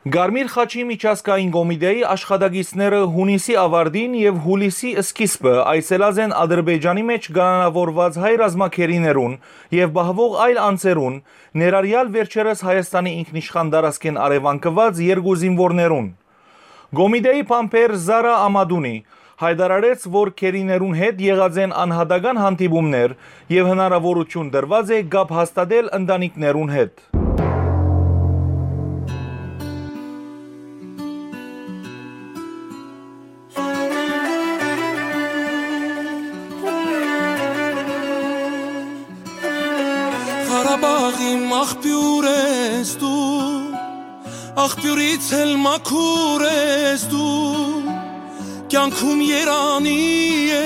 Կարմիր խաչի միջազգային կոմիտէի աշխատակիցները յունիսի աւարտին եւ յուլիսի սկիզբը այցելած են Ադրբեջանի մէջ կալանաւորուած հայ ռազմագերիներուն եւ պահուող այլ անձերուն, ներառեալ վերջերս Հայաստանի ինքնիշխան տարածքէն առեւանգուած երկու զինուորներուն։ Կոմիտէի բանբեր Զարա Ամատունի յայտարարեց, որ գերիներուն հետ եղած են անհատական հանդիպումներ եւ հնարաւորութիւն տրուած է կապ հաստատել ընտանիքներուն հետ։ Աղ իմ աղբիւր ես դու, աղբիւրից էլ մաքուր ես դու, կեանքում երանի է,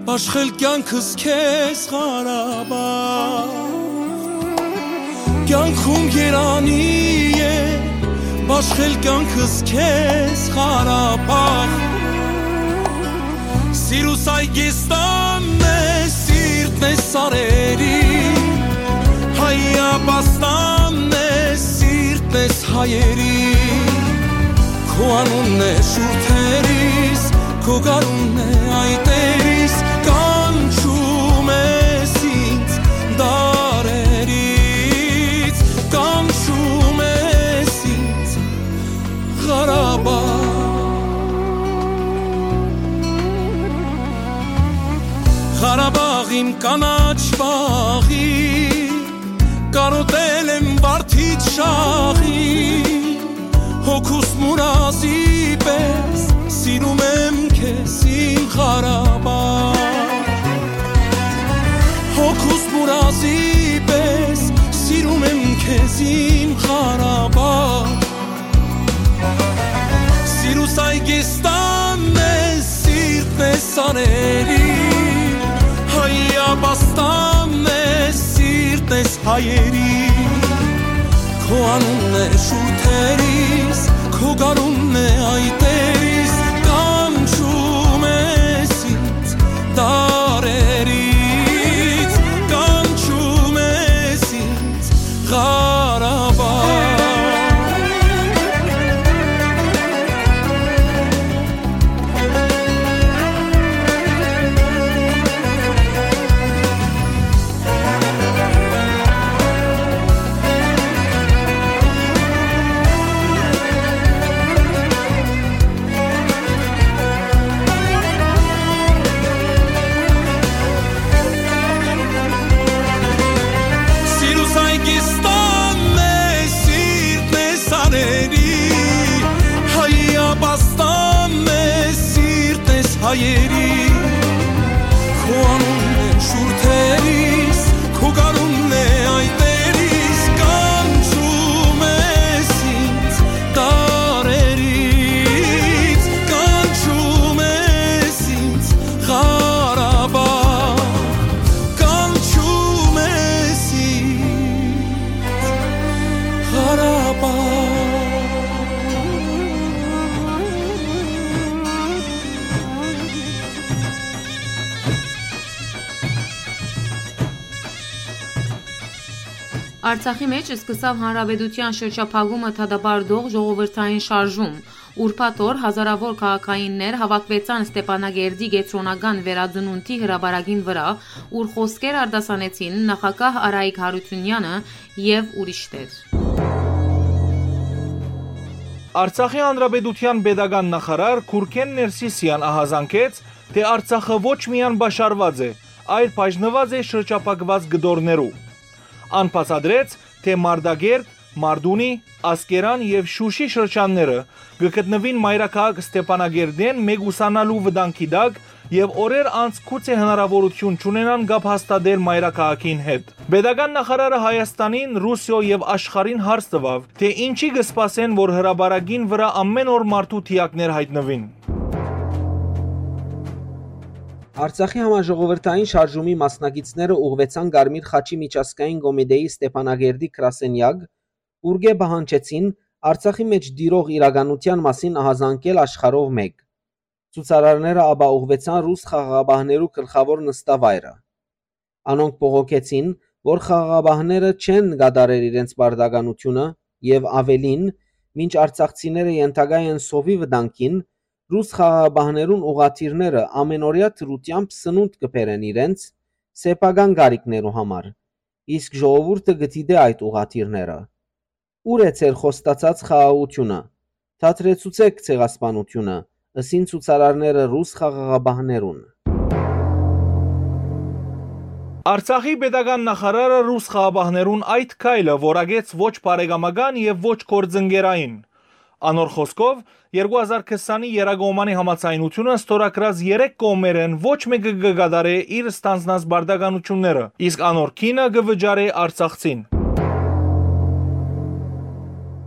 բաշխել կեանքս քեզ, Ղարաբաղ։ Կեանքում երանի է, բաշխել կեանքս քեզ, Ղարաբաղ։ Սիրուս այգեստանն է, սիրտն է սարերի, հայապաստանն է, սիրտն ես հայերի։ Քո անունն է շուրթերիս, քո գարունն է այտերիս, կանչում ես ինձ դարերից, կանչում ես ինձ, Ղարաբաղ։ Ղարաբաղ իմ կանաչ պաղի, կարոտել եմ վարդից շաղի, հոգուս մուրազի պես սիրում եմ քեզ, իմ Ղարաբաղ։ Հոգուս մուրազի պես սիրում եմ քեզ, իմ Ղարաբաղ։ Սիրուս այգեստանն է, սիրտն է սարերի, հայապաստանն է, սիրտն ես հայերի։ Քո անունն է շուրթերիս, քո գարունն է այտերիս, կանչում ես ինձ դարերից, կանչում ես ինձ, Ղարաբաղ։ Սիրուս այգեստանն է, սիրտն է սարերի, հայապաստանն է, սիրտն ես հայերի։ Քո անունն է շուրթերիս, քո գարունն է այտերիս, կանչում ես ինձ դարերից, կանչում ես ինձ, Ղարաբաղ, կանչում ես ինձ, Ղարաբաղ։ Արցախի մէջ սկսաւ Հանրապետութեան շրջափակումը դատապարտող ժողովրդային շարժում։ Ուրբաթ օր հազարաւոր քաղաքայիններ հաւաքուեցան Ստեփանակերտի կեդրոնական վերածնունդի հրապարակին վրայ, ուր խօսքեր արտասանեցին նախագահ Արայիկ Յարութիւնեանը եւ ուրիշներ։ Արցախի Հանրապետութեան պետական նախարար Գուրգեն Ներսիսեան ահազանգեց, թէ Արցախը ոչ միայն պաշարուած է, այլ բաժնուած է շրջափակուած կտորներու։ Ան բացատրեց, թէ Մարտակերտ, Մարտունի, Ասկերան եւ Շուշի շրջանները կը գտնուին մայրաքաղաք Ստեփանակերտէն մեկուսանալու վտանգի տակ եւ օրեր անց գուցե հնարաւորութիւն չունենան կապ հաստատել մայրաքաղաքին հետ։ Պետական նախարարը Հայաստանին, Ռուսիոյ եւ աշխարհին հարց տուաւ, թէ ինչի կը սպասեն, որ հրապարակին վրայ ամէն օր մարդու դիակներ յայտնուին։ Արցախի համաժողովրդային շարժումի մասնակիցները ուղղուեցան Կարմիր խաչի միջազգային կոմիտեի Ստեփանակերտի գրասենեակ, ուրկէ պահանջեցին Արցախի մէջ տիրող իրականութեան մասին ահազանգել աշխարհով մէկ։ Ցուցարարները ապա ուղղուեցան ռուս խաղաղապահներու գլխաւոր նստավայրը։ Անոնք բողոքեցին, որ խաղաղապահները չեն կատարեր իրենց պարտականութիւնը եւ, աւելին, մինչ արցախցիները ենթակայ են սովի վտանգին, ռուս խաղաղապահներուն ուղղաթիռները ամէնօրեայ դրութեամբ սնունդ կը բերեն իրենց սեփական կարիքներու համար, իսկ ժողովուրդը կը դիտէ այդ ուղղաթիռները։ Ո՞ւր է ձեր խոստացած խաղաղութիւնը։ Դադրեցուցէք ցեղասպանութիւնը, ըսին ցուցարարները ռուս խաղաղապահներուն։ Արցախի պետական նախարարը ռուս խաղաղապահներուն այդ քայլը որակեց ոչ բարեկամական եւ ոչ գործընկերային։ Անոր խօսքով, երկու հազար քսանի եռակողմանի համաձայնութիւնը ստորագրած երեք կողմերէն ոչ մէկը կը կատարէ իր ստանձնած պարտականութիւնները, իսկ անոր գինը կը վճարէ արցախցին։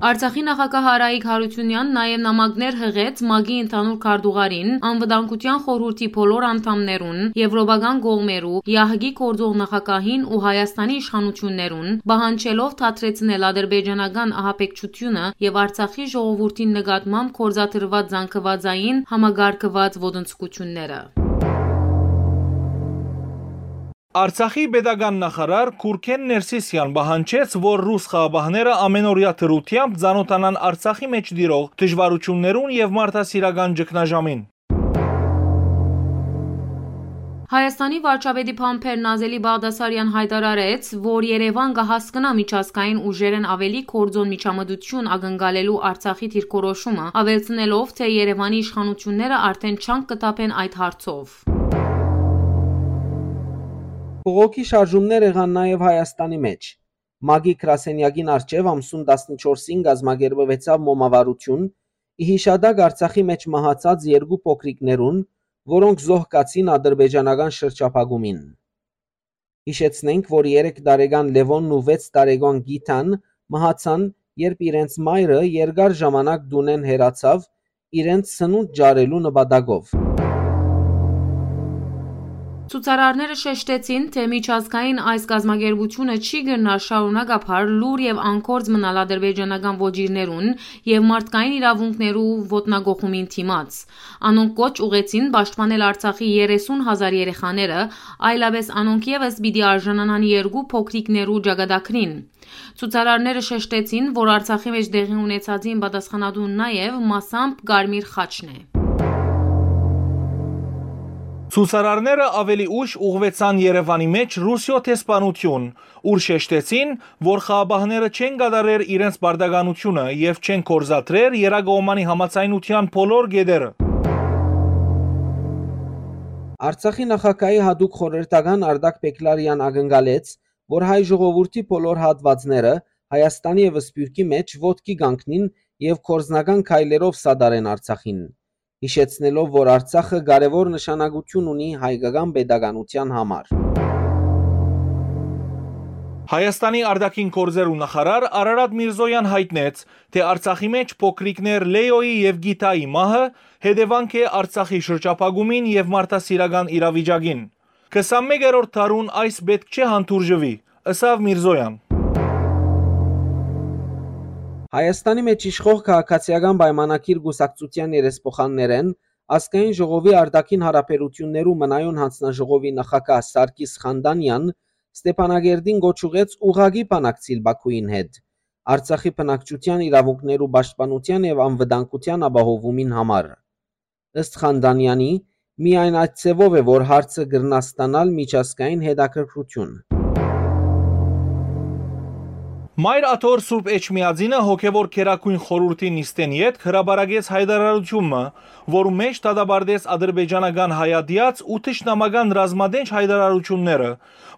Արցախի նախագահ Արայիկ Յարութիւնեան նաեւ նամակներ յղեց ՄԱԿ-ի ընդհանուր քարտուղարին, Անվտանգության խորհուրդի բոլոր անդամներուն, եվրոպական կողմերու, ԵԱՀԿ-ի գործող նախագահին ու Հայաստանի իշխանութիւններուն, պահանջելով դադրեցնել ադրբեջանական ահաբեկչութիւնը եւ Արցախի ժողովուրդին նկատմամբ գործադրուած զանգուածային համակարգուած ոտնձգութիւնները։ Արցախի պետական նախարար Կուրքեն Ներսիսեան պահանջեց, որ ռուս խաղապահները ամենօրեայ դրութեամբ ծանօթանան Արցախի մէջ տիրող դժուարութիւններուն եւ մարդասիրական ճգնաժամին։ Հայաստանի վարչապետի բանբեր Նազելի Բաղդասարեան յայտարարեց, որ Երեւան կը հասկնայ միջազգային ուժերէն աւելի գործօն միջամտութիւն ակնկալելու Արցախի դիրքորոշումը, աւելցնելով, թէ Երեւանի իշխանութիւնները արդէն չանկ կը թափեն այդ հարցով։ Բողոքի շարժումներ եղան նաեւ Հայաստանի մէջ։ ՄԱԿ-ի գրասենեակին առջեւ ամսուն տասնչորսին կազմակերպուեցաւ մոմավառութիւն՝ ի յիշատակ Արցախի մէջ մահացած երկու փոքրիկներուն, որոնք զոհկացին ադրբեջանական շրջափակումին։ Յիշեցնենք, որ երեք տարեկան Լեւոնն ու վեց տարեկան Գիթան մահացան, երբ իրենց մայրը երկար ժամանակ տունէն հեռացաւ՝ իրենց սնունդ ճարելու նպատակով։ Ցուցարարները շեշտեցին, թէ միջազգային այս կազմակերպութիւնը չի կրնար շարունակաբար լուռ եւ անկորձ մնալ ադրբեջանական ոճիրներուն եւ մարդկային իրաւունքներու ոտնագողումին դիմաց։ Անոնք կոչ ուղղեցին պաշտպանել Արցախի երեսուն հազար երեխաները, այլապէս անոնք եւս պիտի արժանանան երկու փոքրիկներու ճակատագրին։ Ցուցարարները շեշտեցին, որ Արցախի մէջ տեղի ունեցածին պատասխանատուն նաեւ մասամբ Կարմիր խաչն է։ Ցուցարարները աւելի ուշ ուղղուեցան Երեւանի մէջ Ռուսիոյ դեսպանութիւն, ուր շեշտեցին, որ խաղապահները չեն կատարեր իրենց պարտականութիւնը եւ չեն գործադրեր եռակողմանի համաձայնութեան բոլոր կետերը։ Արցախի նախագահի յատուկ խորհրդական Արտակ Պեկլարեան ակնկալեց, որ հայ ժողովուրդի բոլոր հատուածները Հայաստանի եւ Սփիւռքի մէջ ոտքի կանգնին եւ գործնական քայլերով սատարեն Արցախին, յիշեցնելով, որ Արցախը կարեւոր նշանակութիւն ունի հայկական պետականութեան համար։ Հայաստանի արտաքին գործերու նախարար Արարատ Միրզոյան յայտնեց, թէ Արցախի մէջ փոքրիկներ Լեոյի եւ Գիթայի մահը հետեւանք է Արցախի շրջափակումին եւ մարդասիրական իրավիճակին։ Քսանմեկերորդ դարուն այս պէտք չէ հանդուրժուի, ըսաւ Միրզոյան։ Հայաստանի մէջ իշխող քաղաքացիական պայմանագիր կուսակցութեան երեսփոխաններէն ազգային ժողովի արտաքին հարաբերութիւններու մնայուն յանձնաժողովի նախագահ Սարգիս Խանդանեան Ստեփանակերտին կոչ ուղղեց ուղղակի բանակցիլ Բաքուին հետ Արցախի բնակչութեան իրաւունքներու պաշտպանութեան եւ անվտանգութեան ապահովումին համար։ Ըստ Խանդանեանի, միայն այդ ձեւով է, որ հարցը կրնայ ստանալ միջազգային հետաքրքրութիւն։ Մայր Աթոռ Սուրբ Էջմիածինը հոգեւոր գերագույն խորհուրդի նիստէն ետք հրապարակեց յայտարարութիւն մը, որու մէջ դատապարտեց ադրբեջանական հայատեաց ու թշնամական ռազմատենչ յայտարարութիւնները,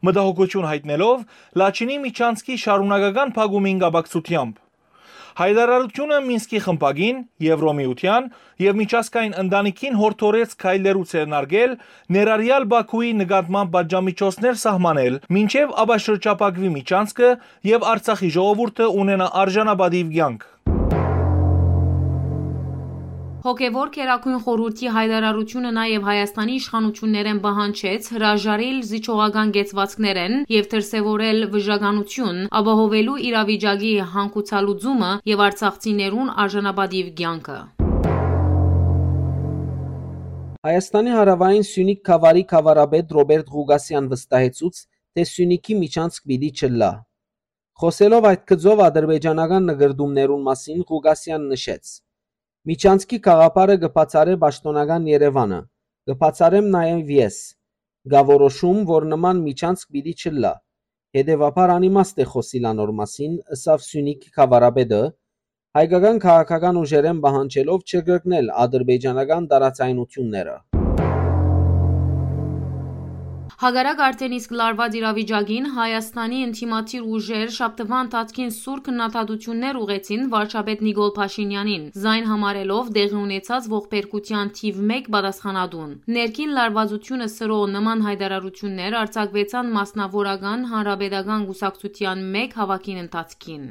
մտահոգութիւն յայտնելով Լաչինի միջանցքի շարունակական փակումին կապակցութեամբ։ Յայտարարութիւնը Մինսկի խմբակին, Եվրոմիութեան եւ միջազգային ընտանիքին յորդորեց քայլերու ձեռնարկել, ներառյալ Բաքուի նկատմամբ պատժամիջոցներ սահմանել, մինչեւ ապաշրջափակուի միջանցքը եւ Արցախի ժողովուրդը ունենայ արժանապատիւ կեանք։ Հոգեվոր Գերագույն Խորհուրդի յայտարարութիւնը նաեւ Հայաստանի իշխանութիւններէն պահանջեց հրաժարիլ զիջողական կեցուածքներէն եւ դրսեւորել վիժականութիւն՝ ապահովելու իրավիճակի հանգուցալուծումը եւ արցախցիներուն արժանապատիւ կեանքը։ Հայաստանի հարաւային Սիւնիք գաւառի գաւառապետ Ռոբերտ Ղուկասեան վստահեցուց, թէ Սիւնիքի միջանցք պիտի չըլլայ։ Խոսելով այդ գծով ադրբեջանական նկրտումներուն մասին, Ղուկասեան նշեց. «Միջանցքի գաղափարը կը բացառէ պաշտօնական Երեւանը, կը բացառեմ նաեւ ես։ Կա որոշում, որ նման միջանցք պիտի չըլլայ։ Հետեւաբար անիմաստ է խօսիլ անոր մասին», ըսաւ Սիւնիքի գաւառապետը, հայկական քաղաքական ուժերէն պահանջելով չկրկնել ադրբեջանական տարաձայնութիւնները։ Հակառակ արդէն իսկ լարուած իրավիճակին, Հայաստանի ընդդիմադիր ուժեր շաբթուան ընթացքին սուր քննադատութիւններ ուղղեցին վարչապետ Նիկոլ Փաշինյանին, զայն համարելով տեղի ունեցած ողբերգութեան թիւ մէկ պատասխանատուն։ Ներքին լարուածութիւնը սրող նման յայտարարութիւններ արձակուեցան մասնաւորական հանրապետական կուսակցութեան մէկ հաւաքին ընթացքին։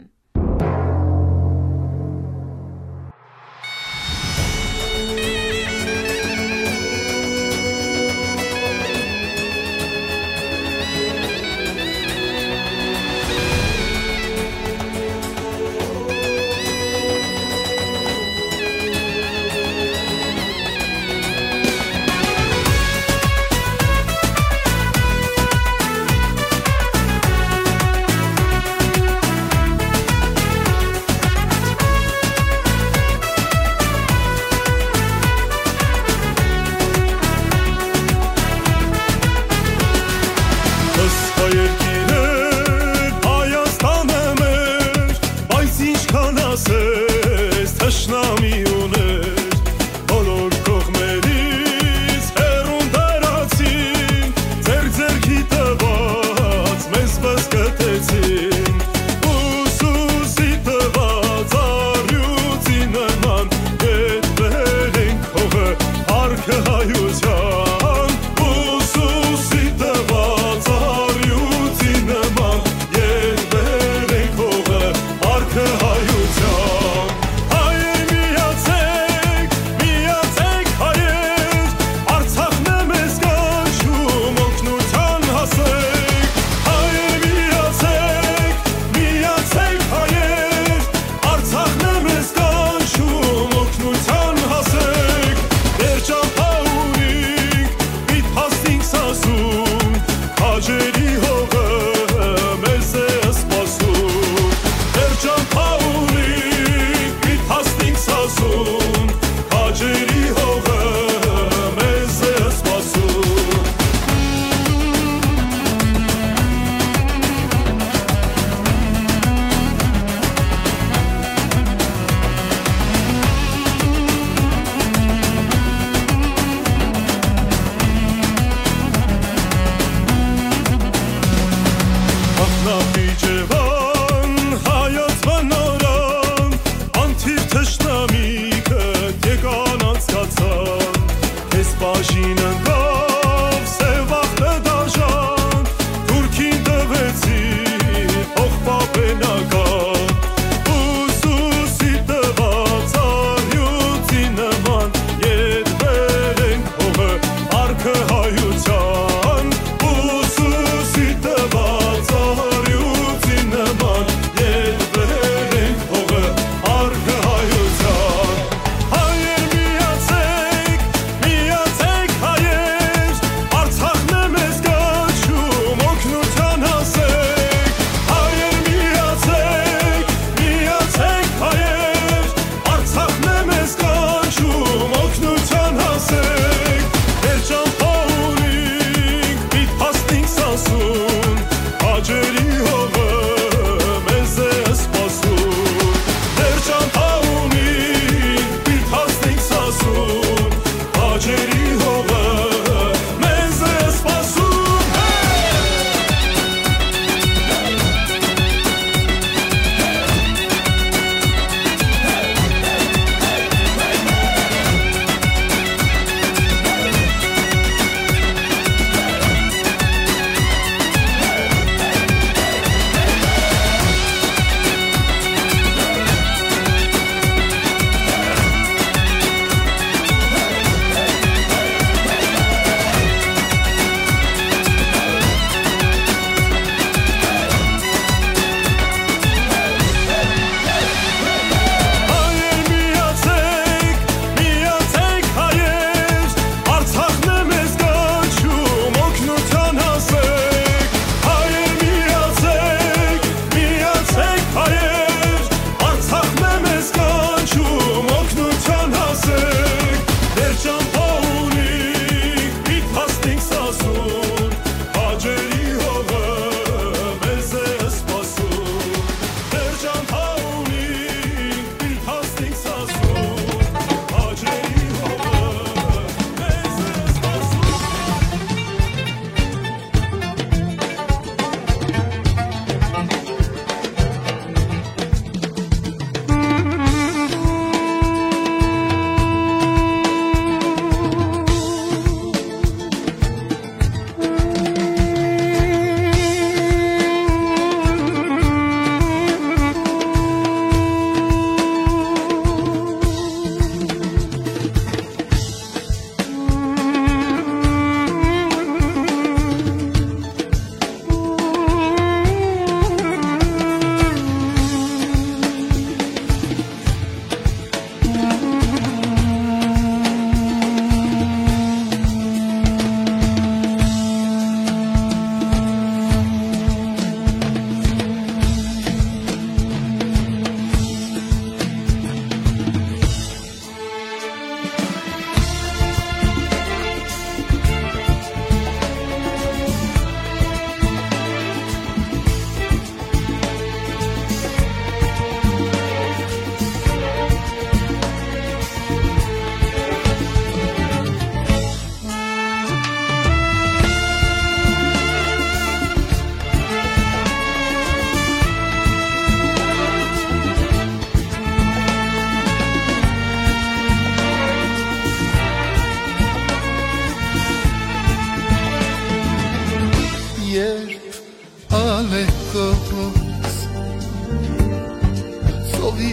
Ովի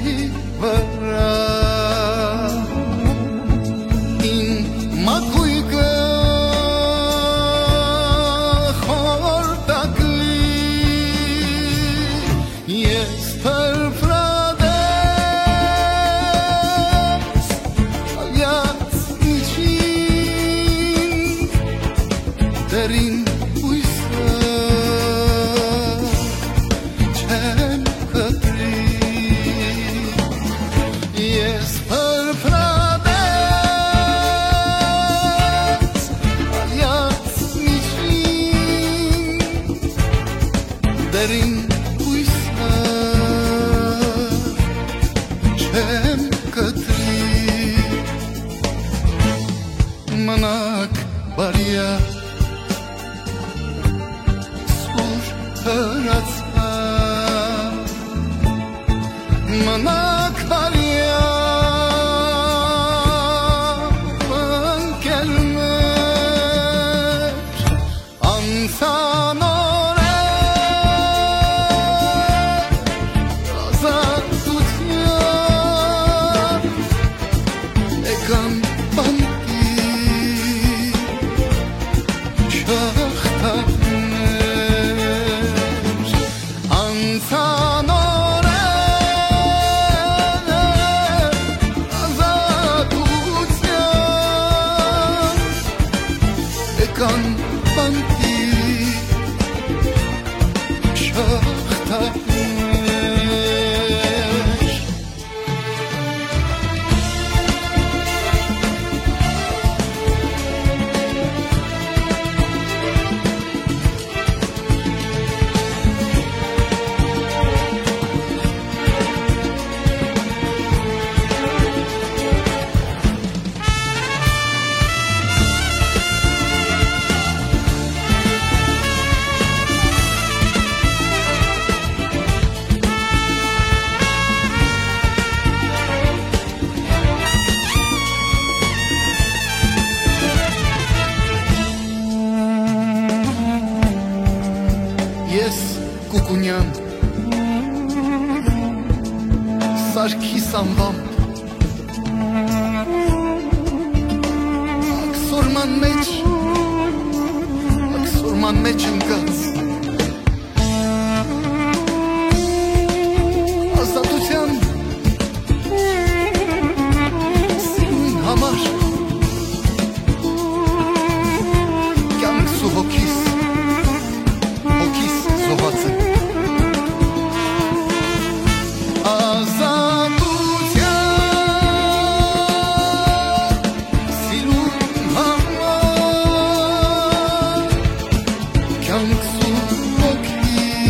վրայ իմ մակոյկը խորտակլի, ես փրփրատես ալյաց միջին, դերին յոյսը չեմ կտրի, ես փրփրատես ալյաց միջին, դերին յոյսը չեմ կտրի, մնաք բարիա սուր հրացան, մնաք բարիա ընկերներ, անցան օրեր ազատության, եկան բանտի շղթաներ, անցան օրեր ազատության, եկան բանտի շղթաներ։ Ես Կուկունեան, Սարգիս անվամբ, աքսորման մեջ, աքսորման մեջ ընկած, ազատության սիրուն համար կյանքս ու հոգիս, հոգիս զոհած եմ։ Ազատության սիրուն համար կյանքս ու հոգիս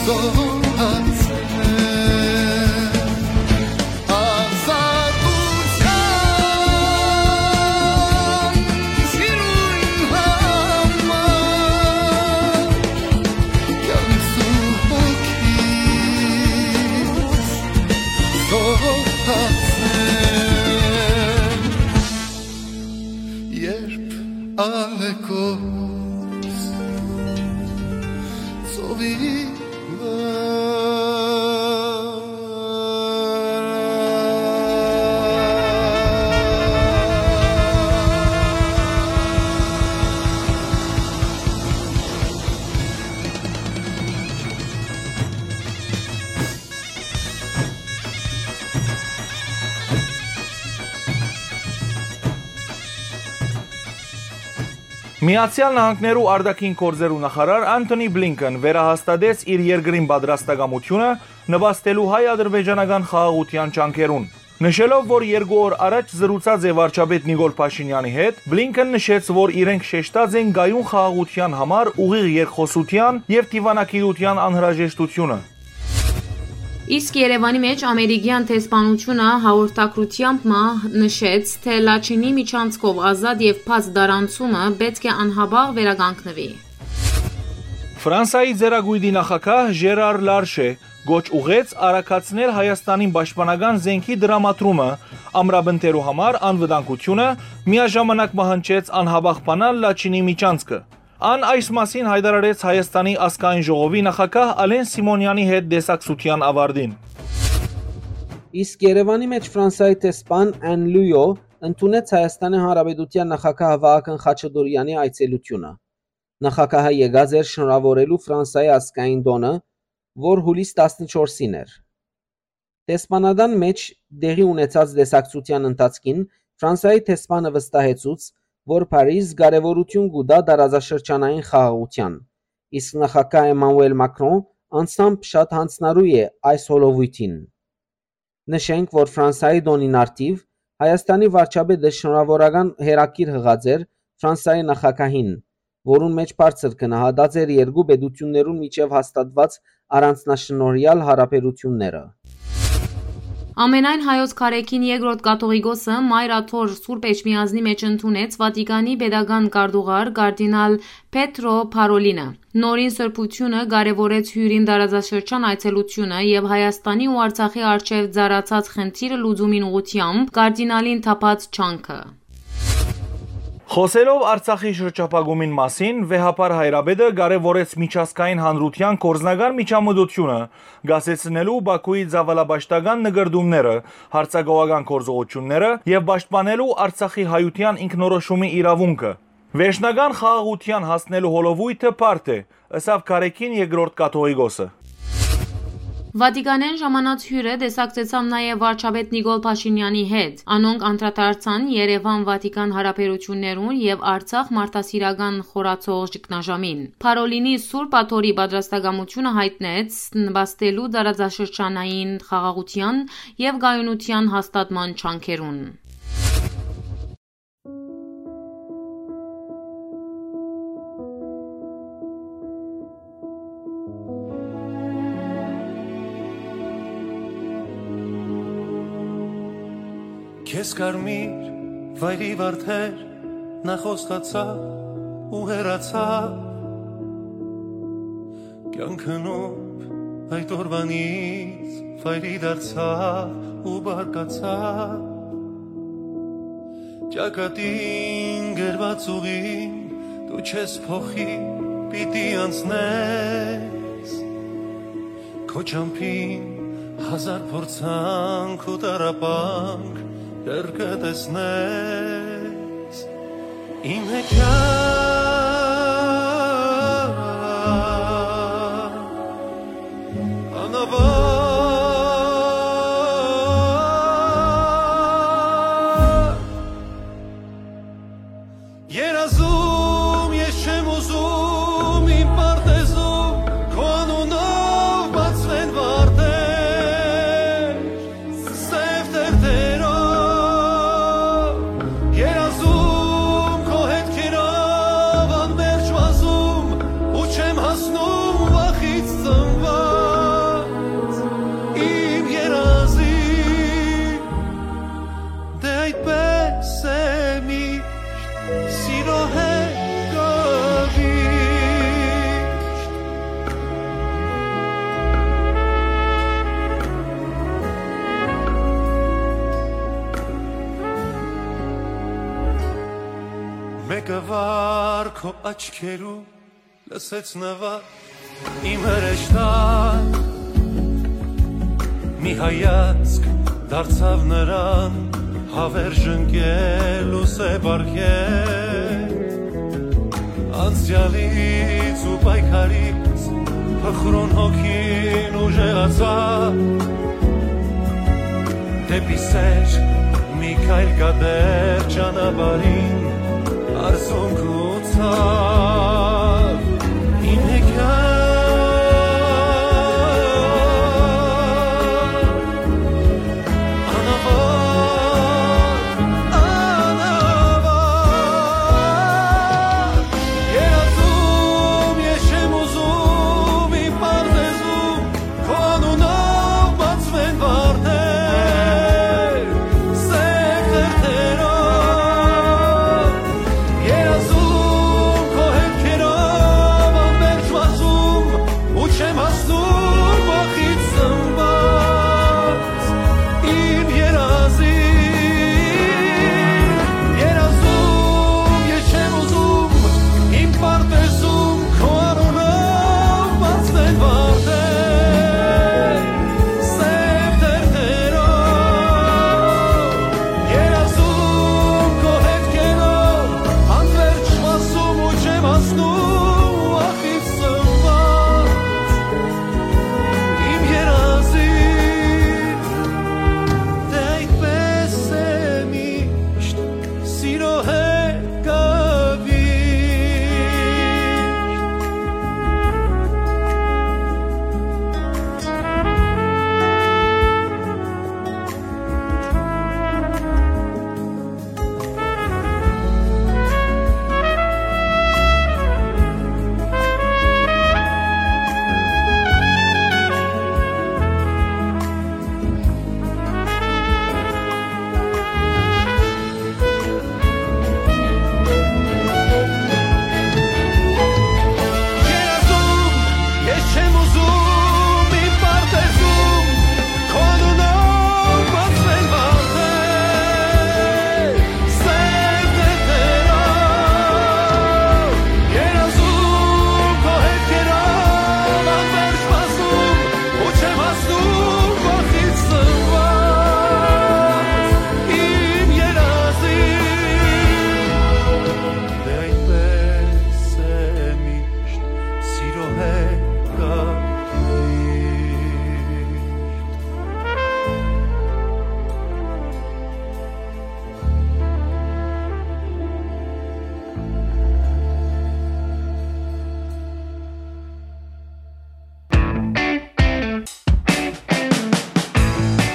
զոհած եմ։ Ազատության սիրուն համար կյանքս ու հոգիս զոհած եմ, երբ ալեկոծ ծովի վրա։ Միացեալ Նահանգներու արտաքին գործերու նախարար Անթոնի Բլինքեն վերահաստատեց իր երկրին պատրաստակամութիւնը նպաստելու հայ-ադրբեջանական խաղաղութեան ջանքերուն, նշելով, որ երկու օր առաջ զրուցած է վարչապետ Նիկոլ Փաշինեանի հետ, Բլինքեն նշեց, որ իրենք շեշտած են կայուն խաղաղութեան համար ուղիղ երկխօսութեան եւ դիվանագիտութեան անհրաժեշտութիւնը։ Իսկ Երեւանի մէջ ամերիկեան դեսպանութիւնը հաղորդակցութեամբ մը նշեց, թէ Լաչինի միջանցքով ազատ եւ բաց տարանցումը պէտք է անհապաղ վերականգնուի։ Ֆրանսայի ծերակոյտի նախագահ Ժերար Լարշէ կոչ ուղղեց արագացնել Հայաստանին պաշտպանական զէնքի տրամադրումը ամրապնդելու համար անվտանգութիւնը, միաժամանակ մը հնչեց անհապաղ բանալ Լաչինի միջանցքը։ Ան այս մասին յայտարարեց Հայաստանի ազգային ժողովի նախագահ Ալեն Սիմոնեանի հետ տեսակցութեան աւարտին։ Իսկ Երեւանի մէջ Ֆրանսայի դեսպան Ան Լույո ընդունեց Հայաստանի Հանրապետութեան նախագահ Վահագն Խաչատուրեանի այցելութիւնը։ Նախագահը եկած էր շնորհաւորելու Ֆրանսայի ազգային տօնը, որ յուլիս տասնչորսին էր։ Դեսպանատան մէջ տեղի ունեցած տեսակցութեան ընթացքին Ֆրանսայի դեսպանը վստահեցուց, որ Փարիզ կարեւորութիւն կու տայ տարածաշրջանային խաղաղութեան, իսկ նախագահ Էմանուել Մակրոն անձամբ շատ յանձնառու է այս հոլովոյթին։ Նշենք, որ Ֆրանսայի տօնին առթիւ Հայաստանի վարչապետը շնորհաւորական հեռագիր յղած էր Ֆրանսայի նախագահին, որուն մէջ բարձր գնահատած էր երկու պետութիւններուն միջեւ հաստատուած առանձնաշնորհեալ յարաբերութիւնները։ Ամենայն հայոց կարեքին երկրորդ կաթողիկոսը Մայր Աթոռ Սուրբ Էջմիածնի մէջ ընդունեց Վատիկանի պետական քարտուղար կարդինալ Պետրո Փարոլինը։ Նորին սրբութիւնը կարեւորեց հիւրին տարածաշրջան այցելութիւնը եւ Հայաստանի ու Արցախի առջեւ ծառացած խնդիրը լուծումին ուղղութեամբ կարդինալին թափած ջանքը։ Խօսելով Արցախի շրջափակումին մասին, վեհափառ հայրապետը կարեւորեց միջազգային հանրութեան գործնական միջամտությունը, կասեցնելու Բաքուի ծաւալապաշտական նկրտումները, հարձակողական գործողութիւնները եւ պաշտպանելու Արցախի հայութեան ինքնորոշումի իրաւունքը։ Վերջնական խաղաղութեան հասնելու հոլովոյթը բարդ է, ըսաւ կարեքին երկրորդ կաթողիկոսը։ Վատիկանէն ժամանած հիւրը տեսակցեցաւ նաեւ վարչապետ Նիկոլ Փաշինեանի հետ։ Անոնք անդրադարձան Երեւան-Վատիկան յարաբերութիւններուն եւ Արցախ մարդասիրական խորացող ճգնաժամին։ Փարոլինի Սուրբ Աթոռի պատրաստակամութիւնը յայտնեց նպաստելու տարածաշրջանային խաղաղութեան եւ կայունութեան հաստատման ջանքերուն։ Քեզ կարմիր վայրի վարդեր, նախ խոստացա ու հեռացա։ Կեանքը նուրբ այդ օրվանից վայրի դարձա ու բարկացա։ Ճակատին գրված ուղին դու չես փոխի, պիտի անցնես։ Քո ճամփին հազար փորձանք ու տառապանք դեռ կը տեսնես։ Իմ հեքիաթ անավարտ։ Երազում ես չեմ ուզում իմ պարտեզում քո անունով բացվեն վարդեր, սեւ թերթերով։ Երազում քո հետքերով անմերժ վազում ու չեմ հասնում վախից ծնված իմ երազի։ Դե այդպես է միշտ, սիրո հետ կողմիշտ։ Մեկը վար քո աչքերու լսեց նվագ իմ հրեշտակ, մի հայացք դարձավ նրան, հավերժ ընկել ու սեպ արկել։ Անցյալից ու պայքարից փխրուն հոգին ուժեղացավ, դեպի սեր մի քայլ կատեր ճանապարհին, արզունք ու ցաւ, իմ հեքիաթ անավարտ, անավարտ, երազում ես չեմ ուզում իմ պարտեզում, քո անունով բացվեն վարդեր, սեփ թերթերով, երազում քո հետքերով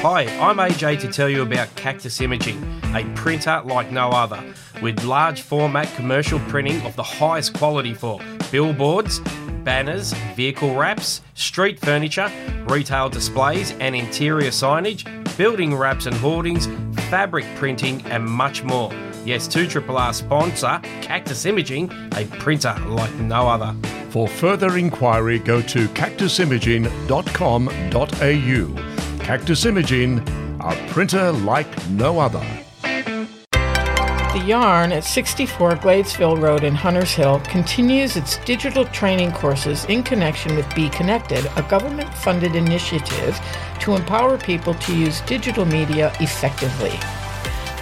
Hi, I'm A J to tell you about Cactus Imaging, a printer like no other, with large format commercial printing of the highest quality for billboards, banners, vehicle wraps, street furniture, retail displays and interior signage, building wraps and hoardings, fabric printing, and much more. Yes, two triple R sponsor Cactus Imaging, a printer like no other. For further inquiry, go to cactus imaging dot com dot a u. Cactus Imaging, a printer like no other. The Yarn at sixty-four Gladesville Road in Hunters Hill continues its digital training courses in connection with Be Connected, a government funded initiative to empower people to use digital media effectively.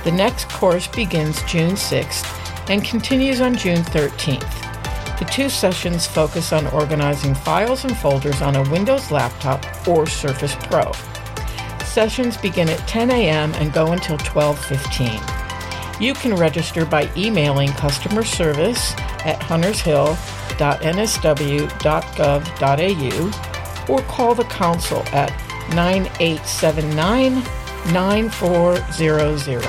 The next course begins June sixth and continues on June thirteenth. The two sessions focus on organizing files and folders on a Windows laptop or Surface Pro. Sessions begin at ten a m and go until twelve fifteen. You can register by emailing customer service at hunters hill dot n s w dot gov dot a u or call the council at nine eight seven nine, nine four zero zero.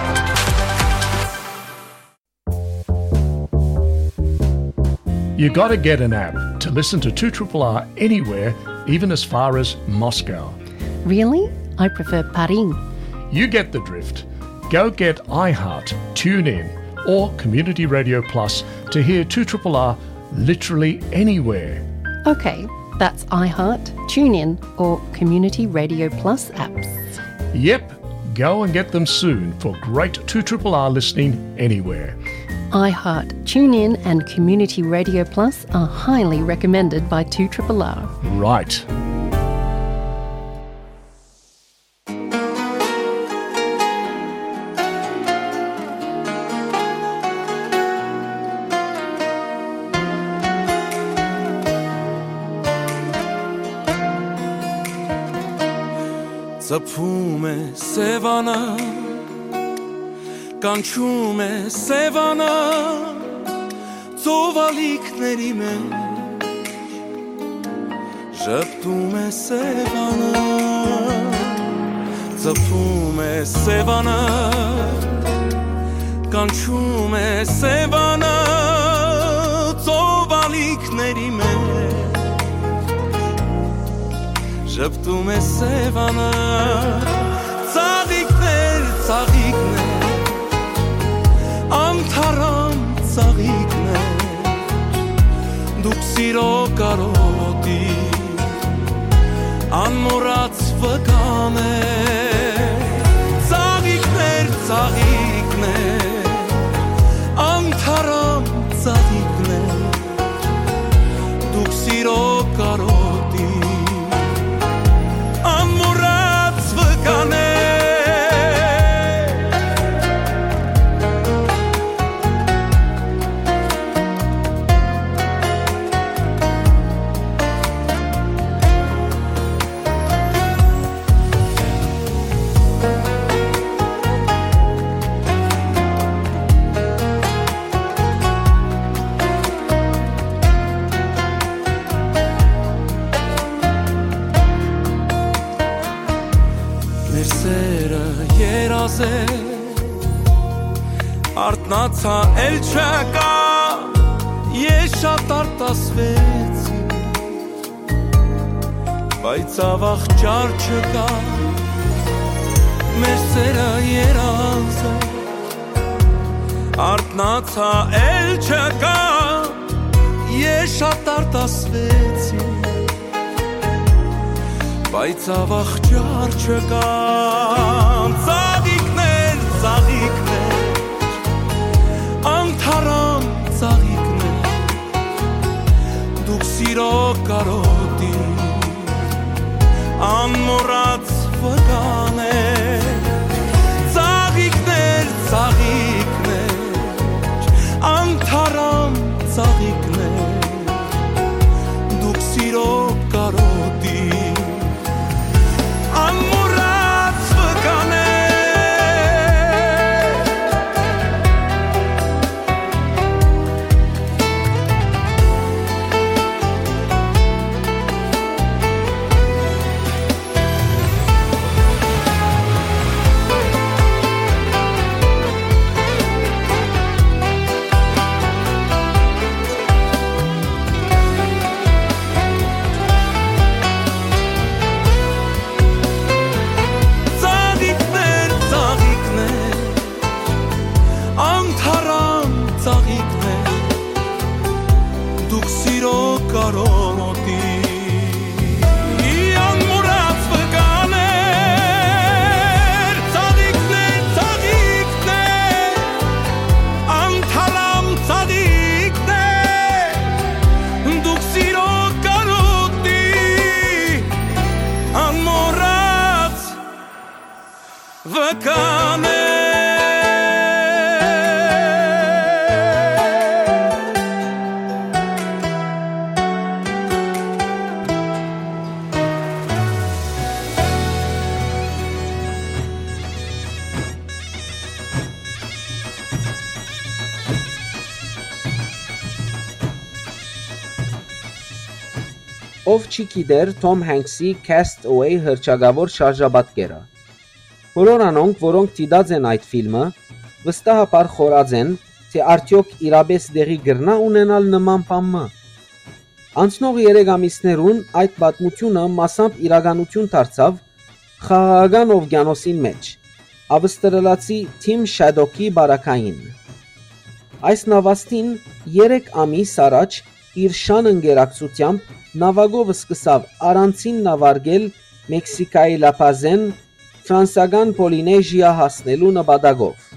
You gotta get an app to listen to two triple R anywhere, even as far as Moscow. Really? I prefer Paris. You get the drift. Go get iHeart, TuneIn, or Community Radio Plus to hear two triple R literally anywhere. Okay, that's iHeart, TuneIn, or Community Radio Plus apps. Yep, go and get them soon for great two triple R listening anywhere. iHeart, TuneIn, and Community Radio Plus are highly recommended by two triple R. Right. Ծփում է Սեւանը, կանչում է Սեւանը, ծովալիքների մեջ ժպտում է Սեւանը, ծփում է Սեւանը, կանչում է Սեւանը, ծովալիքների մեջ ժպտում է Սեւանը, ծաղիկներ, ծաղիկներ, անթարամ ծաղիկներ, դուք սիրո կարոտի անմոռաց վկան եք, ծաղիկներ, ծաղիկներ, անթարամ ծաղիկներ, դուք սիրո կարոտի անմոռաց վկան եք։ Մեր սերը երազ է, արթնացա, էլ չկա, ես շատ արտասվեցի, բայց ավաղ չար չկա, մեր սերը երազ է, արթնացա, էլ չկա, ես շատ արտասվեցի, բայց ավաղ չար չկա, ծաղիկներ, ծաղիկներ, անթարամ ծաղիկներ, դուք սիրո կարոտի անմոռաց վկան եք, ծաղիկներ, ծաղիկներ, անթարամ ծաղիկներ, դուք սիրո կարոտի անմոռաց վկան եք։ Կամե։ Ով չի գիտեր Թոմ Հենքսի Cast Away հռչակաւոր շարժապատկերը։ Բոլոր անոնք, որոնք դիտած են այդ ֆիլմը, վստահաբար խորած են, թէ արդեօք իրապէս տեղի կրնա ունենալ նման բան մը։ Անցնող երեք ամիսներուն այդ պատմութիւնը մասամբ իրականութիւն դարձաւ Խաղաղական ովկիանոսին մէջ, ավստրալացի Թիմ Շատոկի բարակային։ Այս նավաստին երեք ամիս առաջ իր շան ընկերակցութեամբ նաւակով սկսաւ առանցին նավարկել Մեքսիկայի լապազէն ֆրանսական Պոլինեժիա հասնելու նպատակով։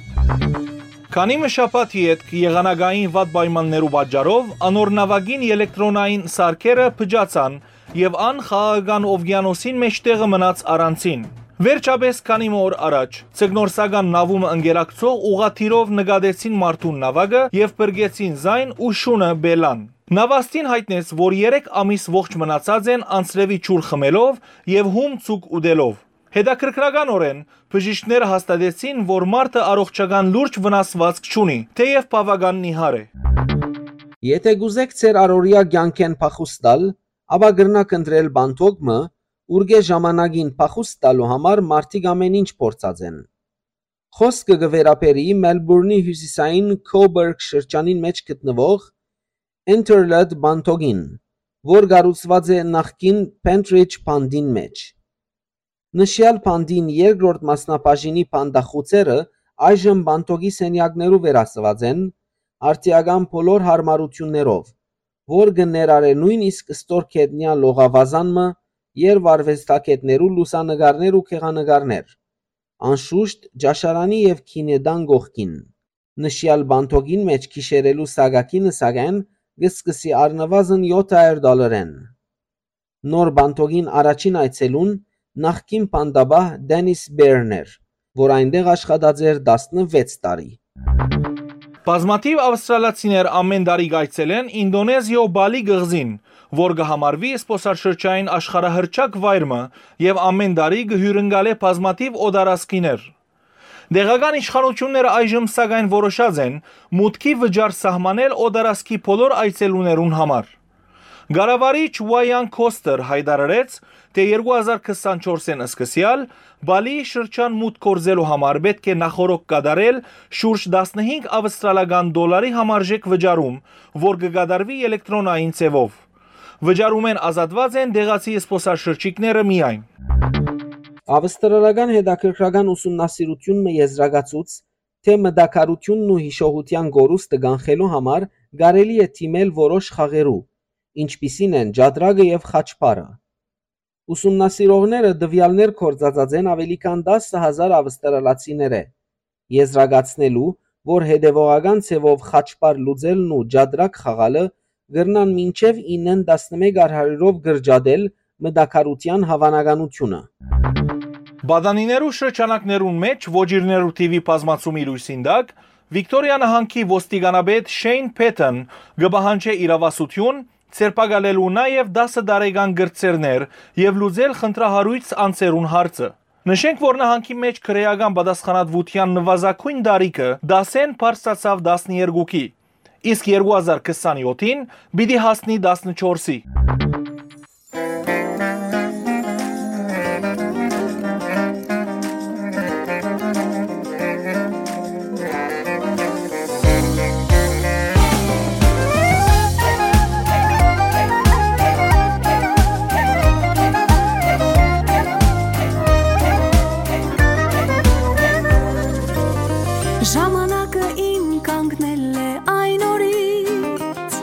Քանի մը շաբաթ ետք եղանակային վատ պայմաններու պատճառով անոր նաւակին ելեկտրոնային սարքերը փճացան եւ ան խաղաղական ովկիանոսին մէջ տեղը մնաց առանցին։ Վերջապէս քանի մը օր առաջ ձկնորսական նավում ընկերակցող ուղղաթիռով նկատեցին մարդուն նաւակը եւ փրկեցին զայն ու շունը Պելան։ Նավաստին յայտնեց, որ երեք ամիս ողջ մնացած են անձրեւի ջուր խմելով եւ հում ծուկ ուտելով։ Հետաքրքրականօրէն, բժիշկները հաստատեցին, որ մարդը առողջական լուրջ վնասուածք չունի, թէեւ բաւական նիհար է։ Եթէ կուզէք ձեր առօրեայ կեանքէն փախուստ տալ, ապա կրնաք ընտրել պանդոկ մը, ուրկէ ժամանակին փախուստ տալու համար մարդիկ ամէն ինչ փորձած են։ Խօսքը կը վերաբերի Մելբուրնի հիւսիսային Քոբերգ շրջանին մէջ գտնուող Enterlet պանդոկին, որ կառուցուած է նախկին Pentridge պանդին մէջ։ Նշեալ պանդին երկրորդ մասնաբաժինի պանդախուցերը այժմ պանդոկի սենեակներու վերածուած են, արդիական բոլոր յարմարութիւններով, որ կը ներառէ նոյնիսկ ստոր գետնեայ լողավազան մը, երբ արուեստագէտներու լուսանկարներ ու գեղանկարներ, անշուշտ ճաշարանի եւ գինետան կողքին։ Նշեալ պանդոկին մէջ գիշերելու սակագինը, սակայն, կը սկսի առնուազն եօթ հարիւր դոլարէն։ Նոր պանդոկին առաջին այցելուն նախկին պանդապահ Դենիս Բերն էր, որ այնտեղ աշխատած էր տասնվեց տարի։ Բազմաթիւ ավստրալացիներ ամէն տարի կայցելեն Ինդոնեզիոյ Բալի կղզին, որ կը համարուի զբօսաշրջային աշխարհահռչակ վայր մը եւ ամէն տարի կը հիւրընկալէ բազմաթիւ օտարազգիներ։ Տեղական իշխանութիւնները այժմ, սակայն, որոշած են մուտքի վճար սահմանել օտարազգի բոլոր այցելուներուն համար։ Կառավարիչ Ուայան Քոստեր յայտարարեց, թէ երկու հազար քսանչորսէն սկսեալ Բալիի շրջան մուտք գործելու համար պէտք է նախօրոք կատարել շուրջ տասնհինգ ավստրալական դոլարի համարժեք վճարում, որ կը կատարուի ելեկտրոնային ձեւով։ Վճարումէն ազատուած են տեղացի զբօսաշրջիկները միայն։ Ավստրալական հետաքրքրական ուսումնասիրութիւն մը եզրակացուց, թէ մտաքարութիւնն ու յիշողութեան կորուստը կանխելու համար կարելի է դիմել որոշ խաղերու, ինչպիսին են ճատրակը եւ խաչբարը։ Ուսումնասիրողները տուեալներ գործածած են աւելի քան տասը հազար ավստրալացիներէ, եզրակացնելու, որ հետեւողական ձեւով խաչբար լուծելն ու ճատրակ խաղալը կրնան մինչեւ իննեն տասնմեկ արհարիւրով կրճատել մտաքարութեան հաւանականութիւնը։ Պատանիներու շրջանակներուն մէջ ոճիրներու թիւի բազմացումի լոյսին տակ Վիկտորիա նահանգի ոստիկանապետ Շեյն Փեթըն կը պահանջէ իրաւասութիւն, ձերբակալելու նաեւ տասը տարեկան կրտսերներ եւ լուծել խնդրահարոյց անձերուն հարցը։ Նշենք, որ նահանգի մէջ քրէական պատասխանատուութեան նուազագոյն տարիքը դասէն բարձրացաւ տասներկուքի, իսկ երկու հազար քսանեօթին պիտի հասնի տասնչորսի։ Ժամանակը իմ կանգնել է այն օրից,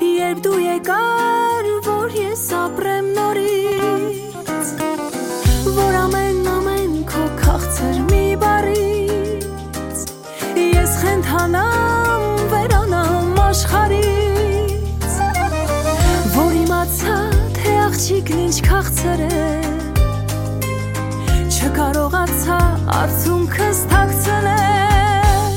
երբ դու եկար, որ ես ապրեմ նորից, որ ամեն, ամեն քո քաղցր մի բառից ես խենթանամ, վերանամ աշխարհից, որ իմացա, թե աղջիկն ինչ քաղցր է, Չկարողացայ արդիւնքս թաքցնել։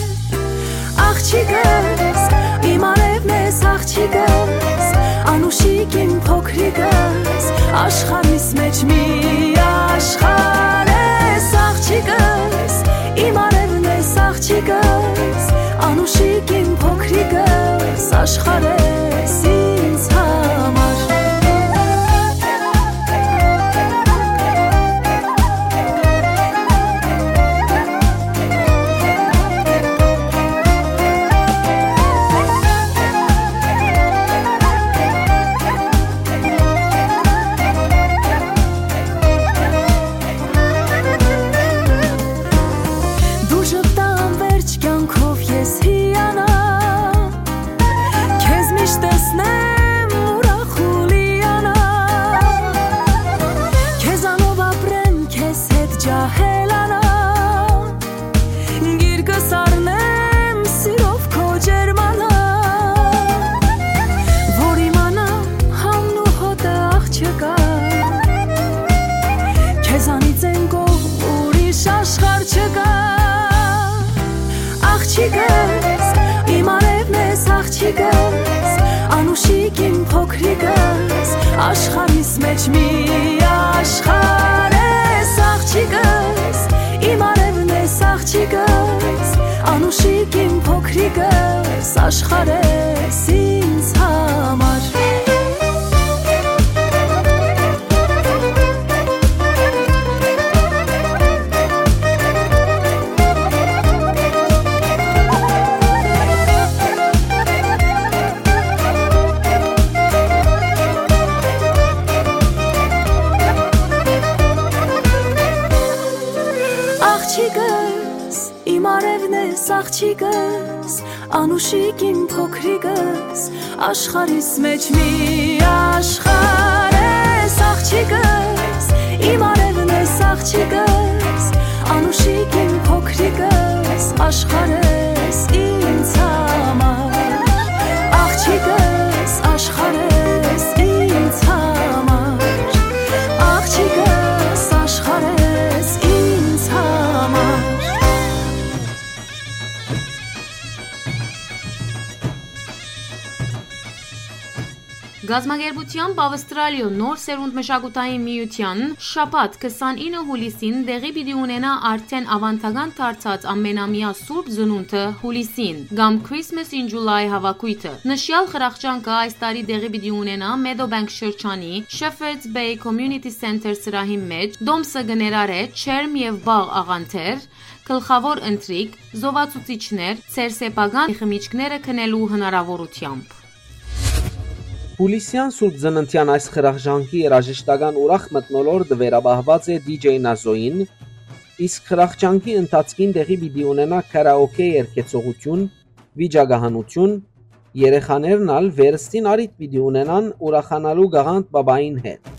Աղջիկս, իմ արեւն ես, աղջիկս, անուշիկ իմ փոքրիկս, աշխարհիս մէջ մի աշխարհ ես, աղջիկս, իմ արեւն ես, աղջիկս, անուշիկ իմ փոքրիկս, աշխարհ ես ինձ համար։ Դու ժպտան վերջ կյանքով ես հիանամ, քեզ միշտ տեսնեմ ուրախ ու լիանամ, քեզանով ապրեմ, քեզ հետ ջահելանամ, գիրկս առնեմ սիրով քո ջերմանամ, որ իմանամ համն ու հոտը աղջկա, քեզանից են կողմ ուրիշ աշխարհ չկա։ Աղջիկս, իմ արեւն ես, աղջիկս, անուշիկ իմ փոքրիկս, աշխարհիս մէջ մի աշխարհ ես, աղջիկս, իմ արեւն ես, աղջիկս, անուշիկ իմ փոքրիկս, աշխարհ ես ինձ համար։ Աղջիկս, իմ արեւն ես, աղջիկս, անուշիկ իմ փոքրիկս, աշխարհիս մէջ մի աշխարհ ես, աղջիկս, իմ արեւն ես, աղջիկս, անուշիկ իմ փոքրիկս, աշխարհ ես ինձ համար, աղջիկս, աշխարհ ես ինձ համար, աղջիկս, աշխարհ ես ինձ համար։ Կազմակերպութեամբ Ավստրալիոյ Նոր Սերունդ մշակութային միութեան շաբաթ քսանինը յուլիսին տեղի պիտի ունենայ արդէն աւանդական դարձած ամենամեայ Սուրբ Ծնունդը յուլիսին, կամ Christmas in July հավաքոյթը։ Նշեալ խրախճանքը այս տարի տեղի պիտի ունենայ Meadowbank շրջանի Shepherd's Bay Community Center սրահին մէջ, տոմսը կը ներառէ ջերմ եւ պաղ աղանդեր, գլխաւոր ընթրիք, զովացուցիչներ, ձեր սեփական խմիչքները գնելու հնարաւորութեամբ։ Յուլիսեան Սուրբ Ծննդեան այս խրախճանքի երաժշտական ուրախ մթնոլորտը վերապահուած է դի ջեյ Նազոյին, իսկ խրախճանքի ընթացքին տեղի պիտի ունենայ քարաոքէ երգեցողութիւն, վիճակահանութիւն, երեխաներն ալ վերստին առիթ պիտի ունենան ուրախանալու Գաղանդ Պապային հետ։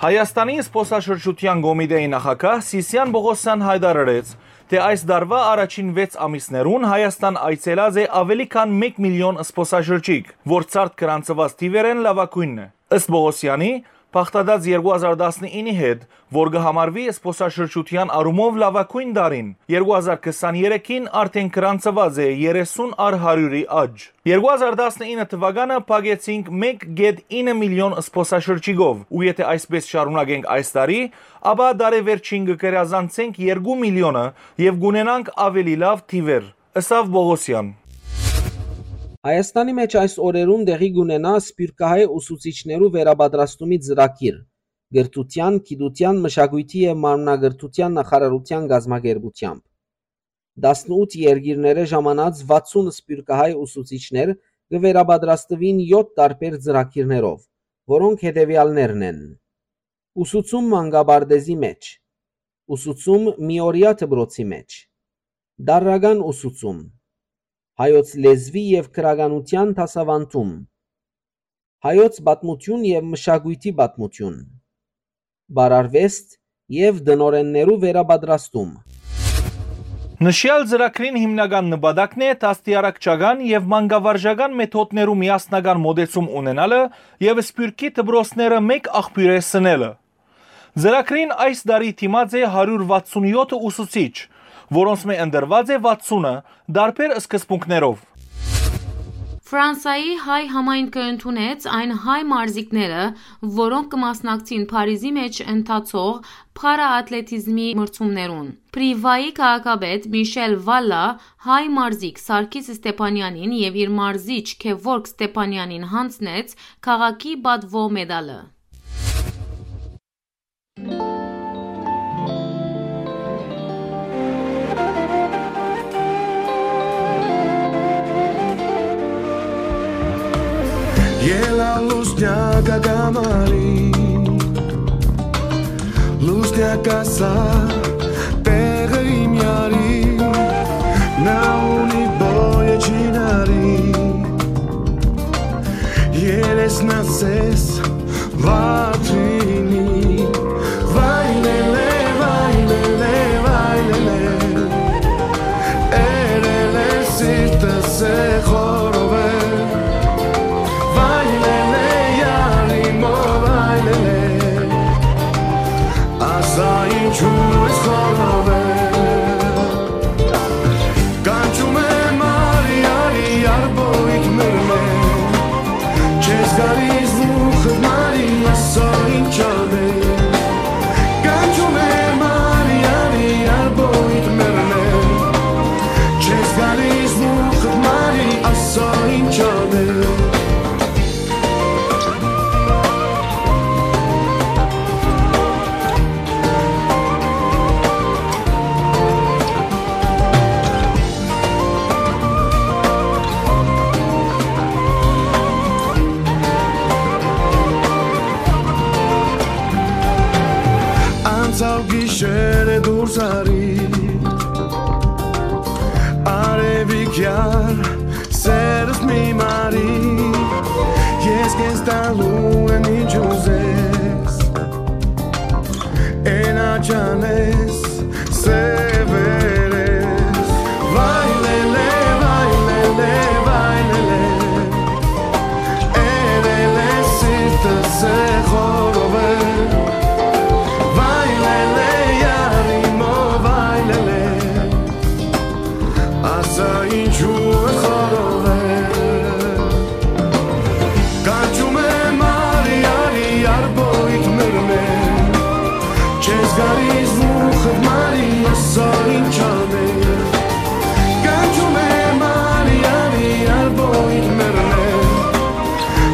Հայաստանի զբօսաշրջութեան կոմիտեի նախագահ Սիսիան Պողոսեան յայտարարեց, թէ այս տարուայ առաջին վեց ամիսներուն Հայաստան այցելած է աւելի քան մէկ միլիոն զբօսաշրջիկ, որ ցարդ գրանցուած թիւերէն լաւագոյնն է։ Ըստ Պողոսեանի, բաղդատած երկու հազար տասնինի հետ, որ կը համարուի զբօսաշրջութեան առումով լաւագոյն տարին, երկու հազար քսաներեքին արդէն գրանցուած է երեսուն առ հարիւրի աճ։ Երկու հազար տասնինը թուականը փակեցինք մէկ կետ ինը միլիոն զբօսաշրջիկով, ու եթէ այսպես շարունակենք այս տարի, ապա տարեվերջին կը գերազանցենք երկու միլիոնը եւ կունենանք աւելի լաւ թիւեր, ըսաւ Պողոսեան։ Հայաստանի մէջ այս օրերուն տեղի կունենայ սփիւռքահայ ուսուցիչներու վերապատրաստումի ծրագիր, կրթութեան, գիտութեան, մշակոյթի եւ մարմնակրթութեան նախարարութեան կազմակերպութեամբ։ Տասնութ երկիրներէ ժամանած վաթսուն սփիւռքահայ ուսուցիչներ կը վերապատրաստուին եօթ տարբեր ծրագիրներով, որոնք հետեւեալներն են. ուսուցում մանկապարտէզի մէջ, ուսուցում միօրեայ դպրոցի մէջ, տարրական ուսուցում, հայոց լեզուի եւ գրականութեան դասաւանդում, հայոց պատմութիւն եւ մշակոյթի պատմութիւն, պարարուեստ եւ տնօրէններու վերապատրաստում։ Նշեալ ծրագրին հիմնական նպատակն է դաստիարակչական եւ մանկավարժական մեթոդներու միասնական մօտեցում ունենալը եւ սփիւռքի դպրոցները մէկ աղբիւրէ սնելը։ Ծրագրին այս տարի դիմած է հարիւր վաթսուն յոթ ուսուցիչ, որոնցմէ ընտրուած է վաթսունը տարբեր սկզբունքներով։ Ֆրանսայի հայ համայնքը ընդունեց այն հայ մարզիկները, որոնք կը մասնակցին Փարիզի մէջ ընթացող փարաատլետիզմի մրցումներուն։ Պրիվայի քաղաքապետ Միշել Վալլա հայ մարզիկ Սարգիս Ստեփանյանին եւ իր մարզիչ Քեվորգ Ստեփանյանին յանձնեց քաղաքի պատուոյ մեդալը։ Ելա լուսնյակ ակամարի, լուսնյակ ասա տեղը իմ յարի, նա ունի բոյը չինարի, երեսն ասես վատրինի, վայ լելե, վայ լելե, վայ լելե, էրելե սիրտս է խորովե, վայ լելե, յարի մո, վայ լելե, ասա ինչու ես խորովե։ Կանչում է Մարիարի արբոյթ մերմե, չես գալիս մուխտ Մարի, ասա ինչ ալ է։ Կանչում է Մարիարի արբոյթ մերմե, չես գալիս մուխտ Մարի, ասա ինչ ալ է։ Անցաւ գիշերը դուրս արի, արեւիկ յար, սերս մի մարի, ես քեզ տալու եմ ինչ ուզես, էնա չանես, սեւերես, վայ լելե, վայ լելե, վայ լելե, էրելե սիրտս է խորովե, վայ լելե, յարի մո, վայ լելե, ասա ինչու է խորովե։ Կանչում է Մարիարի արբոյթ մերմե, չես գալիս մուխտ Մարի, ասա ինչ ալ է։ Կանչում է Մարիարի արբոյթ մերմե,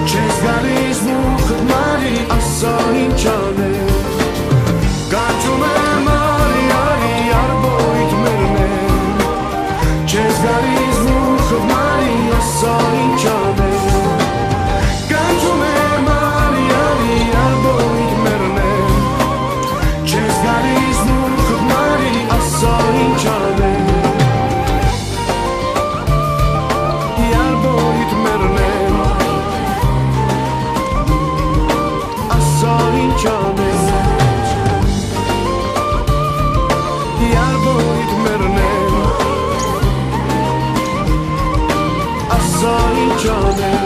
չես գալիս մուխտ Մարի, ասա ինչ ալ է։ Կանչում է Մարիարի արբոյթ մերմե, չես գալիս մուխտ Մարի, ասա ինչ ալ է։ Կանչում է Մարիարի արբոյթ մերմե, չես գալիս մուխտ Մարի, ասա ինչ ալ է։ Արբոյթ մերմե, ասա ինչ անես, արբոյթ մերմե, ասա ինչ անես։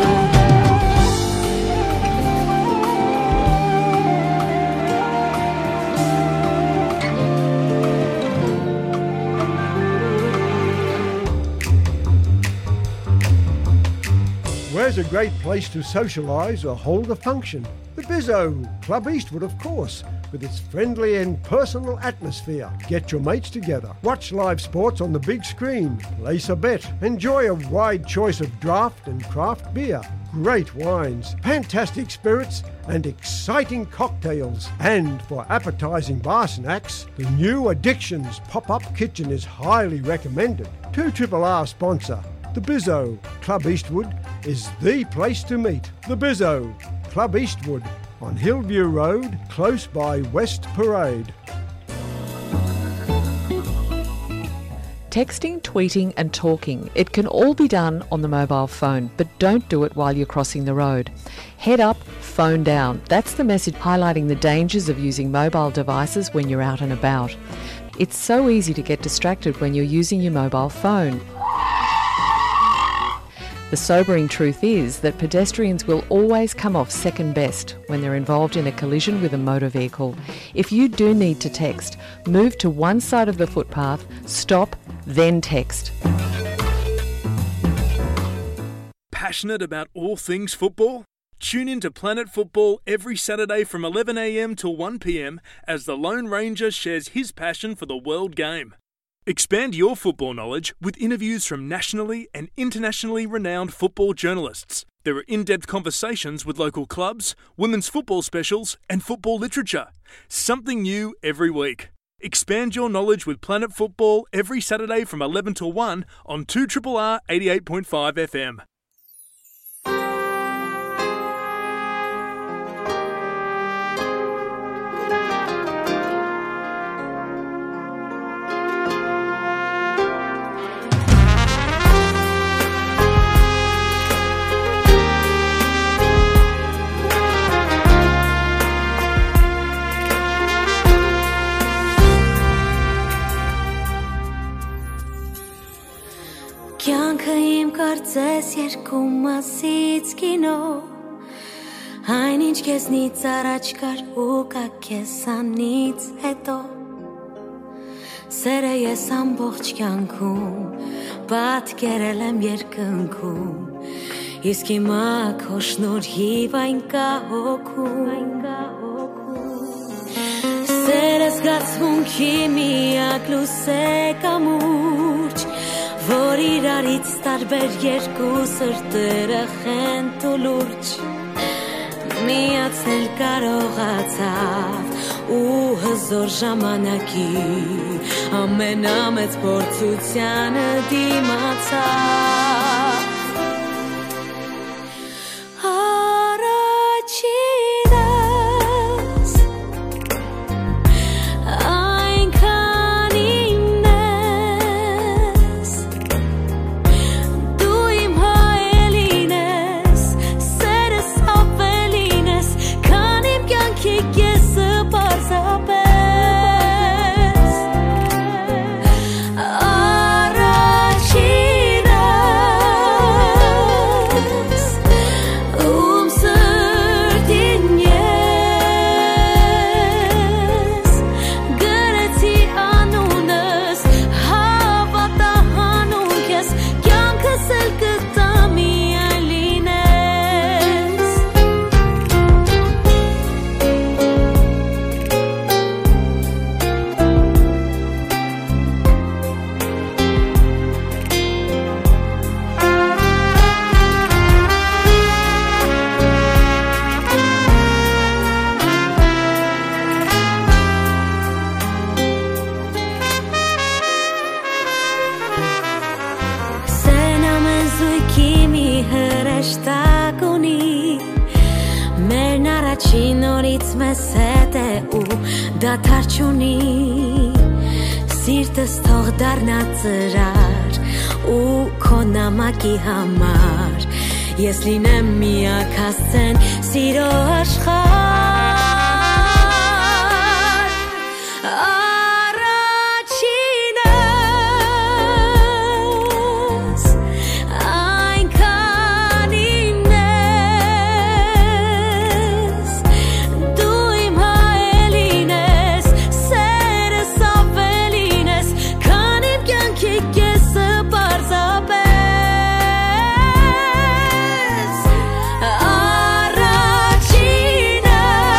Where's a great place to socialise or hold a function? The Bizzo, Club Eastwood, of course, with its friendly and personal atmosphere. Get your mates together, watch live sports on the big screen, place a bet, enjoy a wide choice of draft and craft beer, great wines, fantastic spirits, and exciting cocktails. And for appetising bar snacks, the new Addictions pop-up kitchen is highly recommended. Two Triple R sponsor, the Bizzo, Club Eastwood, is the place to meet. The Bizzo, Club Eastwood, on Hillview Road, close by West Parade. Texting, tweeting, and talking, it can all be done on the mobile phone, but don't do it while you're crossing the road. Head up, phone down. That's the message highlighting the dangers of using mobile devices when you're out and about. It's so easy to get distracted when you're using your mobile phone. The sobering truth is that pedestrians will always come off second best when they're involved in a collision with a motor vehicle. If you do need to text, move to one side of the footpath, stop, then text. Passionate about all things football? Tune in to Planet Football every Saturday from eleven a.m. to one p.m. as the Lone Ranger shares his passion for the world game. Expand your football knowledge with interviews from nationally and internationally renowned football journalists. There are in-depth conversations with local clubs, women's football specials, and football literature. Something new every week. Expand your knowledge with Planet Football every Saturday from eleven to one on two triple R eighty-eight point five F M. Կեանքը իմ կարծես երկու մասից կինո, այն ինչ քեզնից առաջ կար ու կայ քեզանից հետո։ Սերը ես ամբողջ կեանքում պատկերել եմ երկնքում, իսկ հիմա քո շնորհիվ այն կայ հոգում։ Սերը զգացմունքի միակ լուսե կամուրջ, որ իրարից տարբեր երկու սրտերը խենթ ու լուրջ միացնել կարողացաւ ու հզոր ժամանակի ամենամեծ փորձությանը դիմացաւ։ Առաջինս այնքան իմն ես, դու իմ հայելին ես, սերս ավելին ես, քան իմ կյանքի կեսը պարզապես։ Առաջինս, ում սրտին ես գրեցի անունս, հավատա հանուն քեզ, կյանքս էլ կտամ միայն լինես։ Սեն ամեն զույգի մի հրեշտակ ունի, մերն առաջին օրից մեզ հետ է ու դադար չունի։ Սիրտս թող դառնա ծրար ու քո նամակի համար ես լինեմ միակ հասցեն սիրո աշխարհ։ Առաջինս այնքան իմն ես, դու իմ հայելին ես, սերս ավելին ես, քան իմ կյանքի կեսը պարզապես։ Առաջինս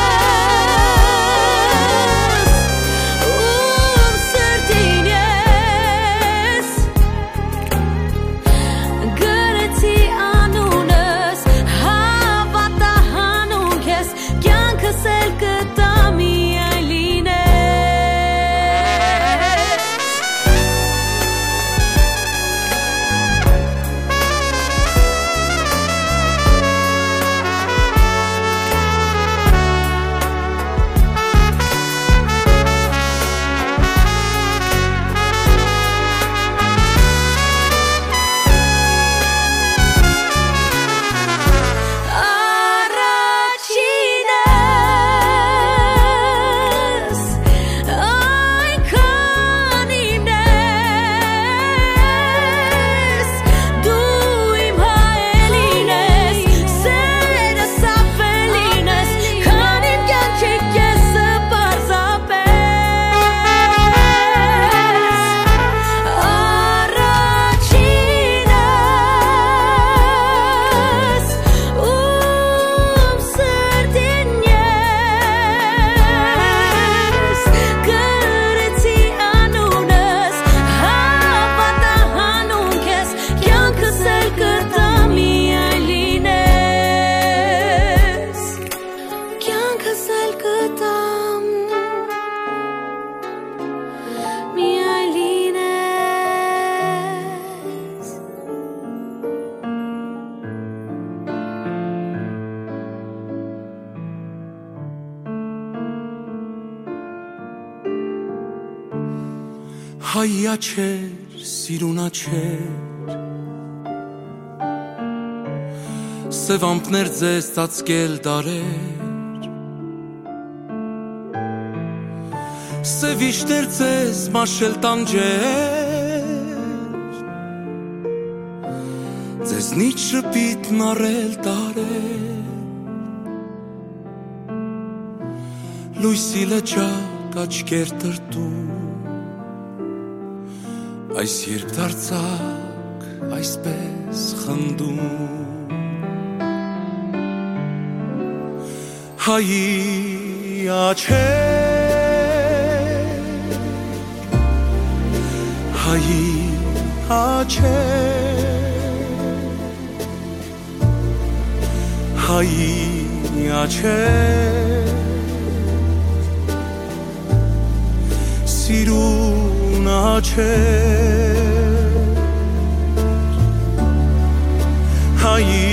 Հայ աչեր, սիրուն աչեր, սեւ ամպներ ձեզ ծածկել դարեր, սեւ իշներ ձեզ մաշել տանջեր, ձեզնից շպիտ նարել տարեր, լոյսի լճակ աչքեր տրտում, այս երբ դարձակ այսպես խնդում։ Հայի աչեր, հայի աչեր, հայի աչեր, սիրուն աչեր, հայի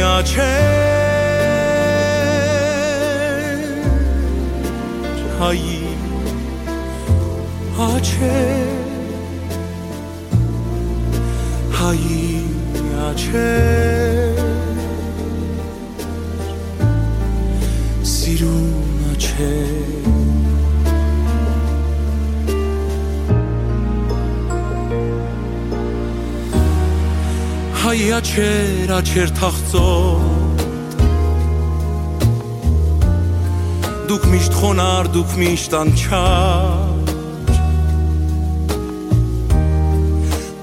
աչեր, հայի աչեր, հայի աչեր, սիրուն աչեր։ Հայ աչեր, աչեր թախծոտ, դուք միշտ խոնար, դուք միշտ անչափ,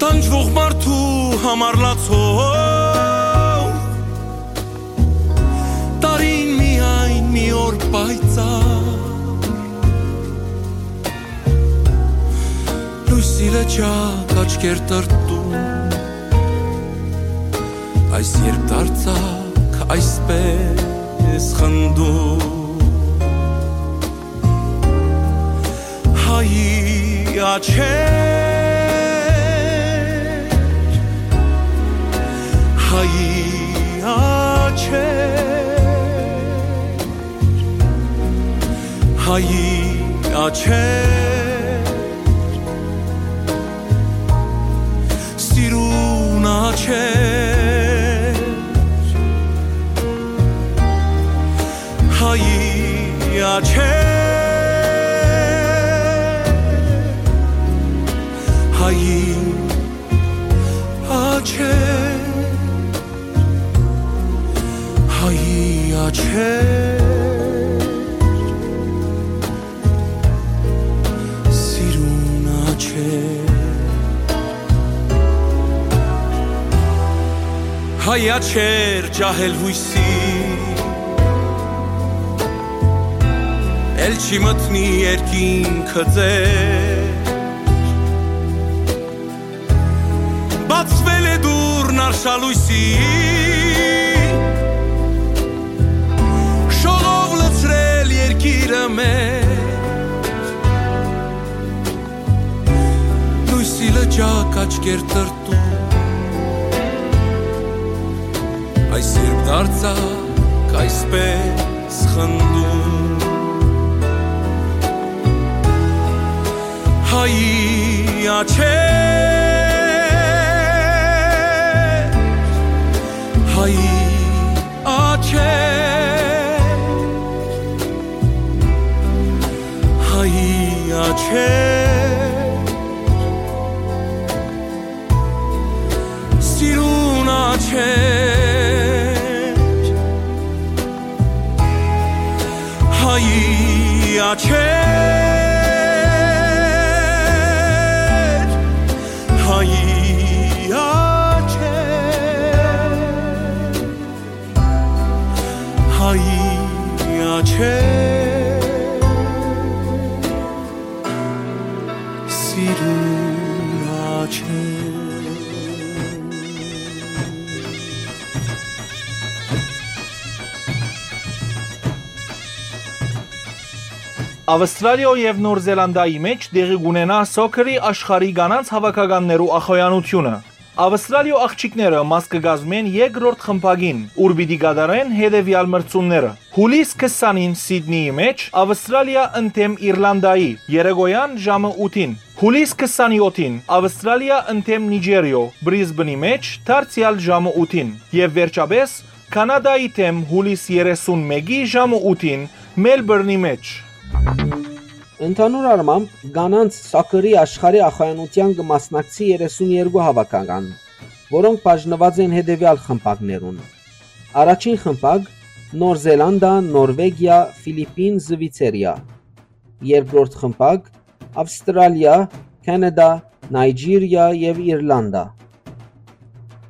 տանջվող մարդու համար լացող, տարին միայն մի օր պայծառ, լոյսի լճակ աչքեր տրտում, այս երբ դարձակ այսպես խնդում։ Հայի աչեր, հայի աչեր, հայի աչեր, սիրուն աչեր, հայի աչեր, հայի աչեր, հայի աչեր, սիրուն աչեր։ Հայ աչեր, ջահել յոյսի, էլ չի մտնի երկինքը ձեր, բացվել է դուռն արշալոյսի, շողով լցրել երկիրը մեր, լոյսի լճակ աչքեր տրտում, այս երբ դարձակ այսպես խնդում։ Հայի աչեր, հայի աչեր, հայի աչեր, սիրուն աչեր, հայի աչեր, հայի աչեր, հայի աչեր, սիրուն աչեր։ Ավստրալիոյ եւ Նոր Զելանդիայի մէջ տեղի կ'ունենայ սոքերի աշխարհի կանանց հաւաքականներու ախոյանութիւնը։ Ավստրալիոյ աղջիկները մաս կը կազմեն երկրորդ խմբակին, ուր պիտի կատարեն հետեւեալ մրցումները. Յուլիս քսանին Սիդնիի մէջ Ավստրալիա ընդդէմ Իրլանդայի, երեկոյան ժամը ութին. Յուլիս քսանյոթին Ավստրալիա ընդդէմ Նիճերիոյ Բրիզբնի մէջ դարձեալ ժամը ութին եւ վերջապէս Քանադայի դէմ յուլիս երեսունմէկի ժամը ութին Մելբուրնի մէջ։ Ընդհանուր առմամբ, կանանց սոքերի աշխարհի ախոյանութեան կը մասնակցի երեսուն երկու հաւաքական, որոնք բաժնուած են հետեւեալ խմբակներուն. առաջին խմբակ՝ Նոր Զելանդա, Նորվեգիա, Ֆիլիպին, Զուիցերիա, երկրորդ խմբակ՝ Ավստրալիա, Քանադա, Նայճիրիա եւ Իրլանդա,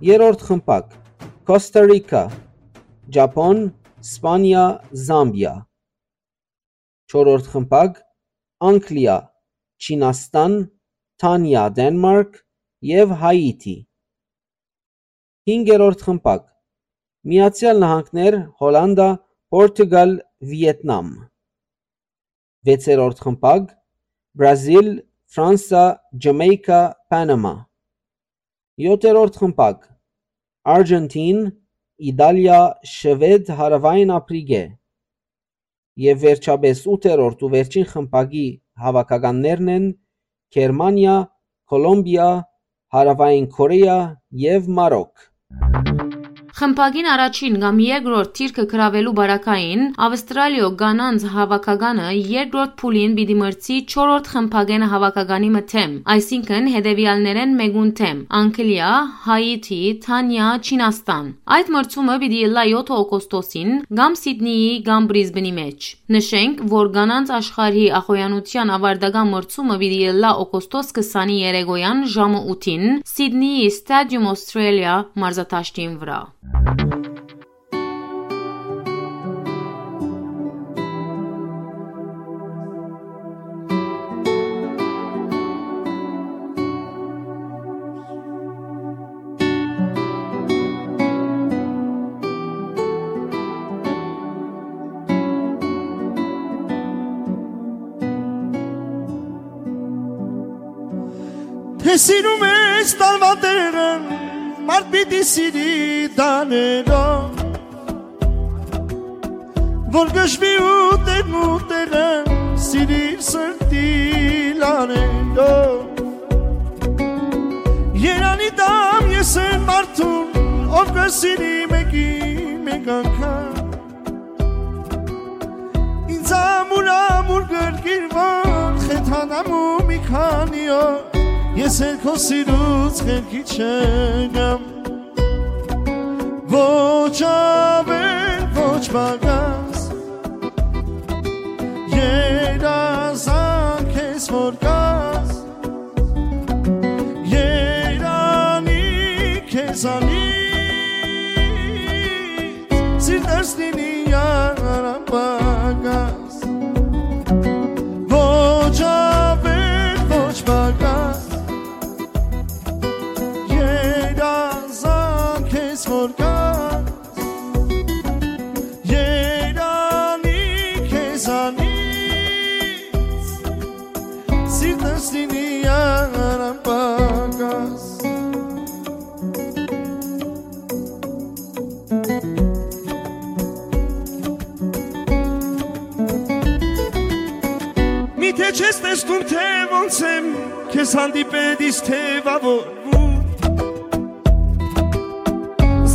երրորդ խմբակ՝ Կոստա Ռիքա, Ճապոն, Սպանիա, Զամբիա, չորրորդ խմբակ՝ Անգլիա, Չինաստան, Դանիա, Դենմարկ եւ Հայիթի, հինգերորդ խմբակ՝ Միացեալ Նահանգներ, Հոլանդա, Պորտուգալ, Վիեթնամ, վեցերորդ խմբակ՝ Բրազիլ, Ֆրանսա, Ջամայկա, Պանամա, յոթերորդ խմբակ՝ Արգենտին, Իտալիա, Շուեդ, Հարաւային Ափրիկէ, եւ վերջապէս ութերորդ ու վերջին խմբակի հաւաքականներն են Գերմանիա, Կոլոմբիա, Հարաւային Կորեա եւ Մարոկ։ Խմբակին առաջին կամ երկրորդ դիրքը գրաւելու պարագային Ավստրալիոյ կանանց հաւաքականը երկրորդ փուլին պիտի մրցի չորրորդ խմբակէն հաւաքականի մը դէմ, այսինքն՝ հետեւեալներէն մէկուն դէմ՝ Անգլիա, Հայիթի, Դանիա, Չինաստան։ Այդ մրցումը պիտի ըլլայ յոթը օգոստոսին կամ Սիդնիի, կամ Բրիզբնի մէջ։ Նշենք, որ կանանց աշխարհի ախոյանութեան աւարտական մրցումը պիտի ըլլայ օգոստոս քսանի երեկոյան ժամը ութին Սիդնիի Stadium Australia մարզադաշտին վրայ։ Թէ սիրում ես տարուան տեղը, մարդ պիտի սիրի տանելով, որ գժվի ու տեղն ու տեղը սիրիր սրտի լանելով։ Երանի տամ ես այն մարդուն, ով կը սիրի մեկի մեկ անգամ։ Ինձ ամուր, ամուր գրկիր, որ խեթանամ ու մի քանի օր ես էլ քո սիրուց խելքի չեմ գամ։ Ոչ ավել, ոչ պակաս, երազանք ես որ կաս, երանի քեզանից, սիրտս լինի անպակաս, ոչ ավել, ոչ պակաս, երազանք ես որ կաս, երանի քեզանից, սիրտս լինի անպակաս։ Միթե չես տեսնում, թե ոնց եմ քեզ հանդիպել, իսկ թեւավորվում։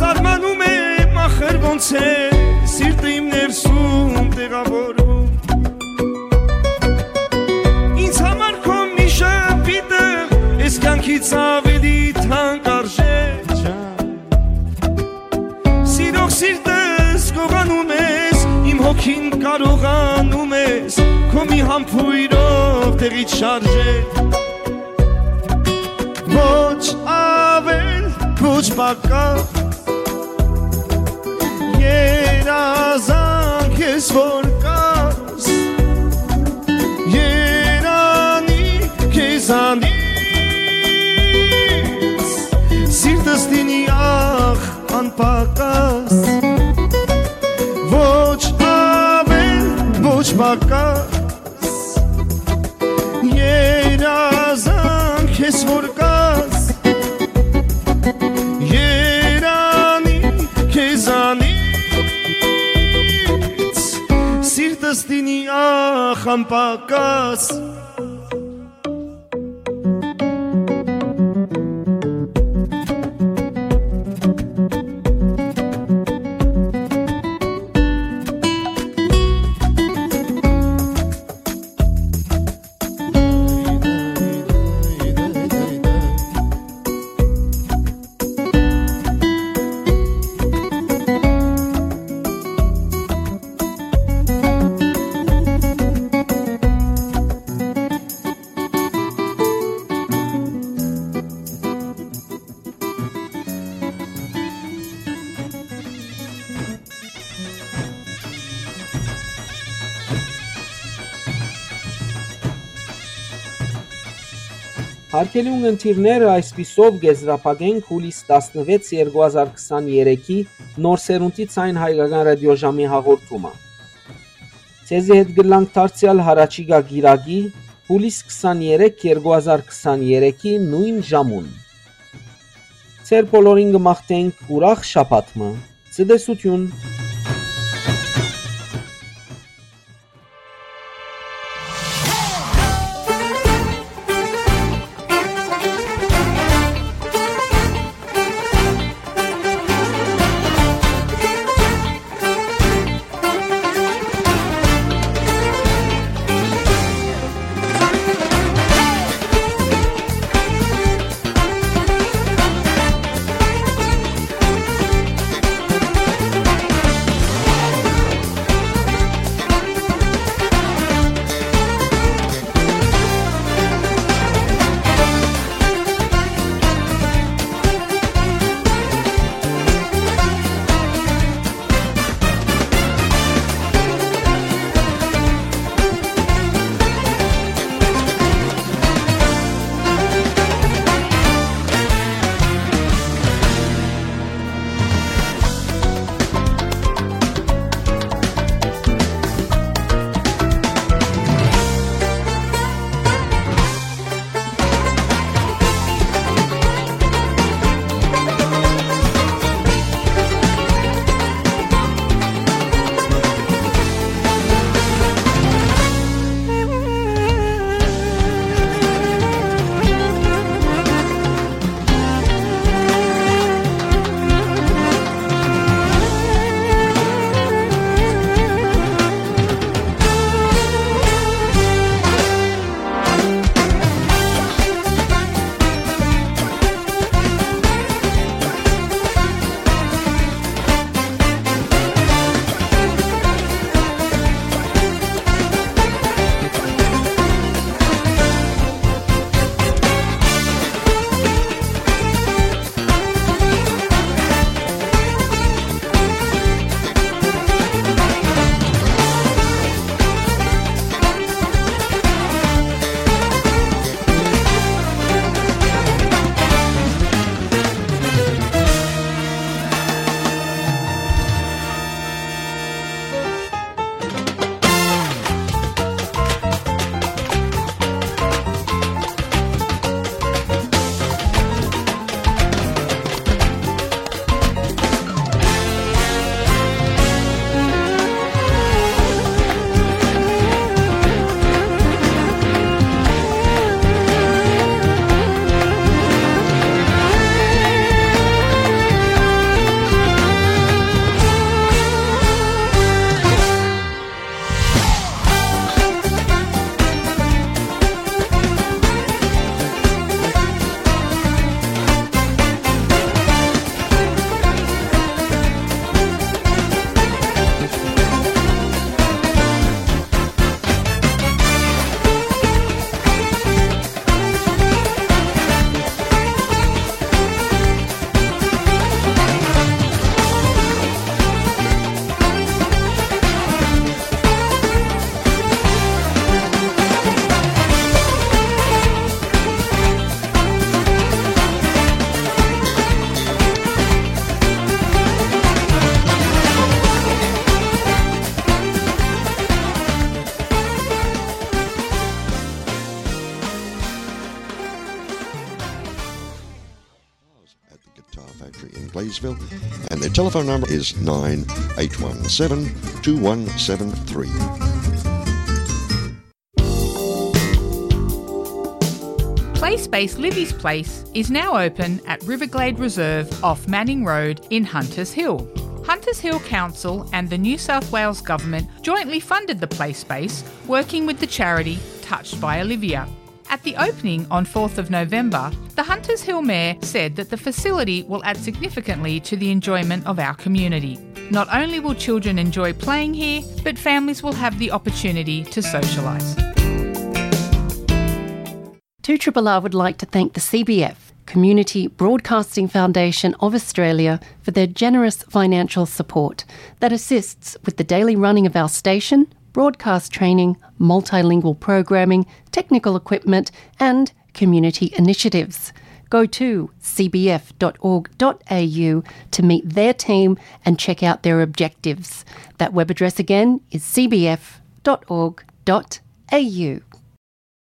Զարմանում եմ, ախր ոնց է սիրտը իմ ներսում տեղավորվում։ Ինձ համար քո մի ժպիտը էս կյանքից ավելի թանկ արժե, ջան։ Սիրող սիրտս գողանում ես, իմ հոգին կարողանում ես քո մի համբույրով տեղից շարժել։ Ոչ ավել, ոչ պակաս, երազանք ես որ կաս, երանի քեզանից, սիրտս լինի ախ անպակաս, ոչ ավել, ոչ պակաս, երազանք ես որ կաս, Խմբակաց։ Հարգելի ունգընտիրներ, այսպիսով կ'եզրափակենք յուլիս տասնվեց երկու հազար քսաներեքի նոր սերունդի Ձայն Հայկական ռադիոժամի հաղորդումը։ Ձեզի հետ կ'ըլլանք դարձեալ յառաջիկայ կիրակի, յուլիս քսաներեք երկու հազար քսաներեքի նոյն ժամուն։ Ձեր բոլորին կը մաղթենք ուրախ շաբաթ մը։ Ցտեսութիւն։ At the Guitar Factory in Gladesville, and their telephone number is nine eight one seven two one seven three. Play Space Livy's Place is now open at Riverglade Reserve off Manning Road in Hunters Hill. Hunters Hill Council and the New South Wales Government jointly funded the play space, working with the charity Touched by Olivia. At the opening on fourth of November, the Hunters Hill Mayor said that the facility will add significantly to the enjoyment of our community. Not only will children enjoy playing here, but families will have the opportunity to socialise. Two R R R would like to thank the C B F, Community Broadcasting Foundation of Australia, for their generous financial support that assists with the daily running of our station, broadcast training, multilingual programming, technical equipment, and community initiatives. Go to C B F dot org dot A U to meet their team and check out their objectives. That web address again is C B F dot org dot A U.